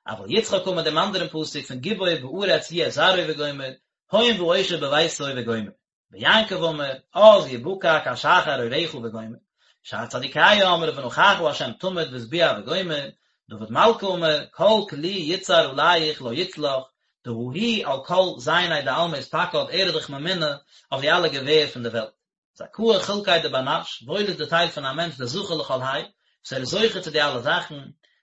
אבל יצחק אמר דעם אנדערן פסוק פון גיבור בארץ יהיה זרעו וגומר, הון ועושר בביתו וגומר. ויעקב אמר, אז יבקע כשחר אורך וגומר, שאר צדיקיא אמרי ונוכחה ה' תמיד והשביע וגומר, דוד מלכא אמר, כל כלי יצהר עליך לא יצלח, דהא הוא על כל זייני דעלמא אתפקיד ער איז דאך ממונה אויף די אלע געווער פון די וועלט. זכאה חולקיה דבר נש, וואויל איז די טייל פון א מענטש דזכי לכל האי, וואס ער איז זוכה צו די אלע זאכן,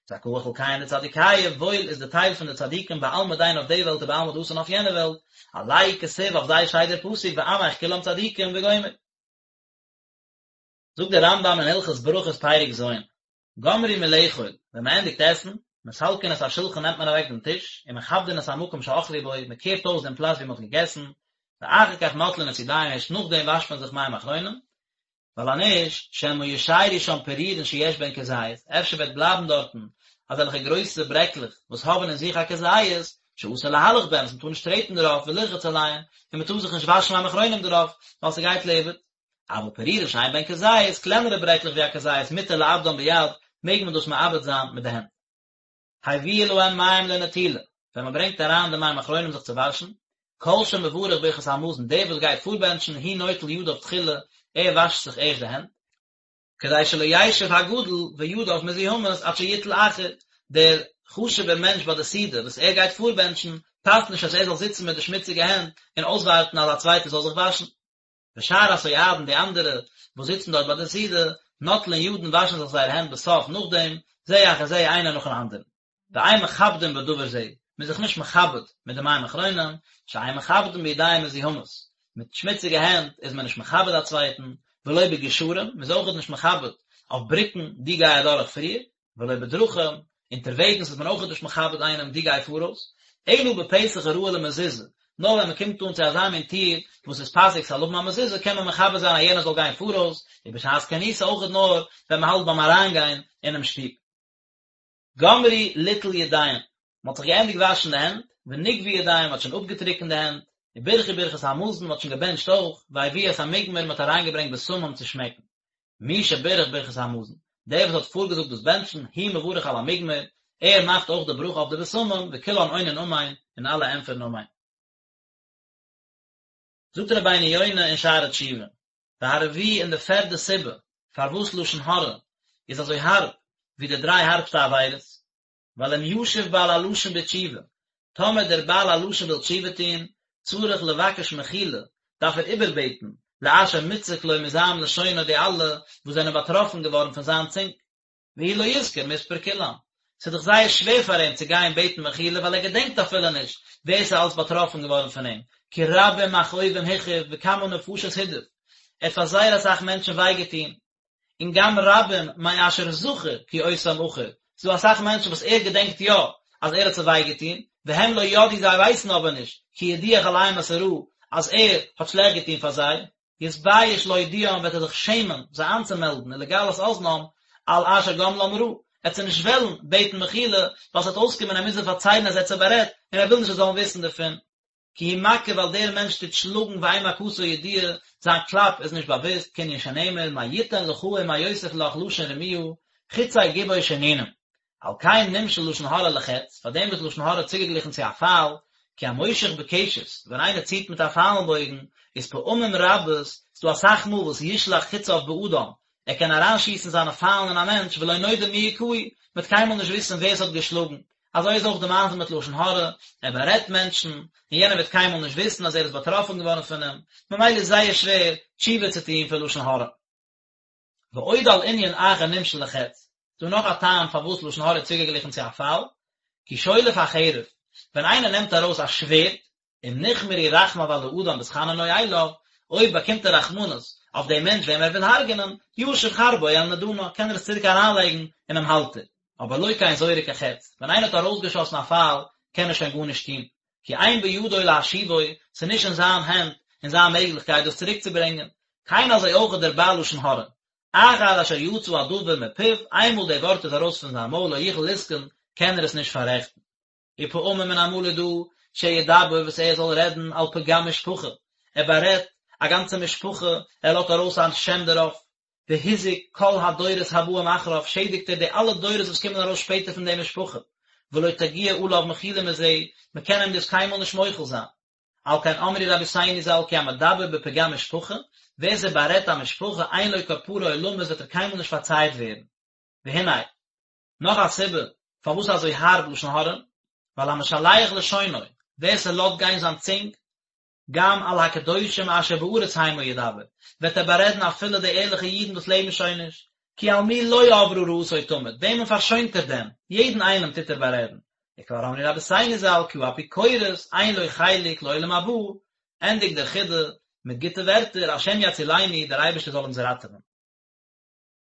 זכאה חולקיהון דצדיקיא, וואויל איז די טייל פון די צדיקים בעלמא דין אויף די וועלט ובעלמא דאתי און אויף יענע וועלט, עלייהו כתיב אויף זיי שטייט דער פסוק ועמך כולם צדיקים וגומר. זאגט דער רמב"ם אין הלכות ברכות פרק ז', גמרו מלאכול, ווען מען ענדיגט עסן, מסלקין את השולחן נעמט מען אוועק דעם טיש, ומכבדין את המקום שאכלו בו, מען קערט אויס דעם פלאץ ווי מען האט געגעסן, ואחר כך נוטלין את ידיהם ערשט נאכדעם וואשט מען זיך מים אחרונים, ווייל אז נישט, שמא ישיירו שם פירורין שיש בהן כזית, אפשר וועט בלייבן דארטן אזעלכע גרויסע ברעקלעך וואס האבן אין זיך א כזית, שאסור להלך בהן, וואס מען טאר נישט טרעטן דערויף ולרחוץ עליהן, און מען טאר זיך נישט וואשן מים אחרונים דערויף, ווייל ס'גייט לאיבוד. אבל פירורין שאין בהן כזית, קלענערע ברעקלעך ווי א כזית, מותר לאבדן ביד, מעג מען דאס מאבד זיין מיט די הענט. הביאו להם מים לנטילה, ווען מען ברענגט אריין די מים אחרונים זיך צו וואשן, כל שמברך ברכת המזון, דער וואס גייט פארבענטשן, הוא נוטל ידיו תחילה, ער וואשט זיך ערשט די הענט, כדי שלא ישב הגדול וידיו מזוהמות עד שיטול אחר, דער חשוב'ער מענטש ביי די סעודה וואס ער גייט פארבענטשן, פאסט נישט אז ער זאל זיצן מיט די שמוציגע הענט און אויסווארטן אז א צווייטער זאל זיך וואשן. ושאר הסועדין די אנדערע וואס זיצן דארט ביי די סעודה, נוטלין ידן וואשן זיך זייערע הענט בסוף נאכדעם, זה אחר זה איינער נאכן אנדערן. ואין מכבדין בדבר זה, מען איז זיך נישט מכבד מיט די מים אחרונים, שאין מכבדין בידיים מזוהמות, מיט שמוציגע הענט איז מען נישט מכבד א צווייטן, ולא בגשרים, מען איז אויכעט נישט מכבד אויף בריקן, דו גיי אדורך פריער, ולא בדרכים, אונטערוועגנס איז מען אויכעט נישט מכבד איינעם דו גיי פאראויס, אלא בפתח הראוי למזוזה, נאר ווען מען קומט אן צו אזא מין טיר וואס איז פאסיג ס'זאל האבן א מזוזה קען מען מכבד זיין אז יענער זאל גיין פאראויס, ובשעת כניסה אויכעט נאר ווען מען האלט ביים אריינגיין אינעם שטוב. גמרו ליטול ידיהם, מען האט זיך געענדיגט וואשן די הענט, ונגבו ידיהם, מען האט שוין אפגעטריקנט די הענט, וברכו ברכת המזון, מען האט שוין געבענטשט אויך, והביאו את המוגמר, מען האט אריינגעברענגט בשמים צו שמעקן. מי שבירך ברכת המזון, דער וואס האט פארגעזאגט דאס בענטשן, הוא מברך על המוגמר, ער מאכט אויך די ברכה אויף די בשמים, וכולן עונין אמן, און אלע ענטפערן אמן. זאגט רבינו יונה אין שערי תשובה, והרביעי און די פערדע סיבה פארוואס לשון הרע איז אזוי הארב ווי די דריי הארבסטע עבירות, ווייל אם ישוב בעל הלשון בתשובה, טאמער דער בעל הלשון וויל תשובה טון, צריך לבקש מחילה, דארף ער איבערבעטן, לאשר מוצק לו מזעם לשונו די אלע וואס זענען באטראפן געווארן פון זיין צונג. והוא לא יזכור מספר כולם, ס'איז דאך זייער שווער פאר אים צו גיין בעטן מחילה ווייל ער געדענקט אפילו נישט ווער ס'איז אלס באטראפן געווארן פון אים, כי רבים מכאובים הכאיב וכמה נפשות הדאיב, ער האט פאר זייער אסאך מענטשן וויי געטון, און גם רבים מאשר זכר כי אותם אחור, ס'איז דא אסאך מענטשן וואס ער געדענקט יא אז ער האט זיי וויי געטון, והם לא ידעו זיי ווייסן אבער נישט, כי הדיח עליהם את הרעה, אז ער האט שלעכט געטון פאר זיי, יתבייש להודיעם וועט ער זיך שעמען זיי איינצומעלדן ולגלות אזנם על אשר גמלם רעה, ער וועט זיי נישט וועלן בעטן מחילה ווייל ס'וועט אויסקומען ער מוז זיי פארציילן אז ער האט זיי בארעדט און ער וויל נישט זיי זאלן וויסן דערפון. כי הוא מכה ווייל דער מענטש טוט שלאגן ואין מכתו ידועה, זיין קלאפ איז נישט באוואוסט, כענין שנאמר מה יתן לך ומה יוסיף לך לשון רמיה, חצי גבור שנינים. על כן נמשל לשון הרע לחץ, פאר דעם איז לשון הרע צוגעגליכן צו א פייל, כי המושך בקשת, ווען איינער ציט מיט א פיילן בויגן, איז פעמים רבות, ס'דא אסאך מאל וואס ישלח חציו באדם, ער קען אריינשיסן זיינע פיילן אין א מענטש ולא נודע מי הכהו, מ'וועט קיינמאל נישט וויסן ווער ס'האט געשלאגן. אזוי איז אויך די מעשה מיט לשון הרע, ער בארעדט מענטשן, און יענער וועט קיינמאל נישט וויסן אז ער איז באטראפן געווארן פון אים, ממילא איז זייער שווער תשובה צו טון פון לשון הרע. ועוד על ענין אחר נמשל לחץ, ס'דא נאך א טעם פארוואס לשון הרע איז צוגעגליכן צו א פייל, כי שולף החרב, ווען איינער נעמט ארויס א שווערד, אם נכמרו רחמיו על האדם בהתחננו אליו, אויב באקומט ער רחמנות אויף דעם מענטש וועם ער וויל הרג'נען, ישיב חרבו אל נדנה, קען ער עס צוריק אריינלייגן אינעם האלטער. אבער לא כן זורק החץ, ווען איינער האט ארויסגעשאסן א פייל, קען ער שוין גארנישט טון, כי אין בידו להשיבו, ס'איז נישט אין זיין הענט, אין זיין מעגליכקייט דאס צוריקצוברענגען. כן אזוי אויך דער בעל לשון הרע. אחר אשר יצא הדבר מפיו, איינמאל די ווארט איז ארויס פון זיין מויל לא יוכל לתקון, קען ער עס נישט פאררעכטן. ופעמים און אמאל איז דא שידבר וואס ער זאל רעדן על פגם משפחה, ער בארעדט א גאנצע משפחה, ער לאזט ארויס א שם דערויף, והזיק כל הדורות הבאים אחריו, שעדיגט ער די אלע דורות וואס קומען ארויס שפעטער פון די משפחה, ולא תגיע עליו מחילה מזה, מען קען אים דאס קיינמאל נישט מוחל זיין. על כן אמרו רבותינו ז"ל כי המדבר בפגם משפחה, ווער ס'בארעדט א משפחה אין לו כפרה עולמית וועט ער קיינמאל נישט פארצייט ווערן. והנה, נאך א סיבה פארוואס אזוי הארב לשון הרע, ווייל המשלח לשונו, ווער ס'לאזט גיין זיין צונג, גם על הקדושים אשר בארץ המה ידבר, וועט ער בארעדן אפילו די ערליכע אידן וואס לעבן שוין נישט, כי על מי לא עברה רעתו תמיד, וועמען פארשוינט ער דען, יעדן איינעם טוט ער בארעדן. וכבר אמרו רבותינו ז"ל כי האפיקורס אין לו חלק לעולם הבא, ענדיגט דער חידא מיט גוטע ווערטער, השם יצילנו, דער אייבערשטער זאל אונז ראטעווען.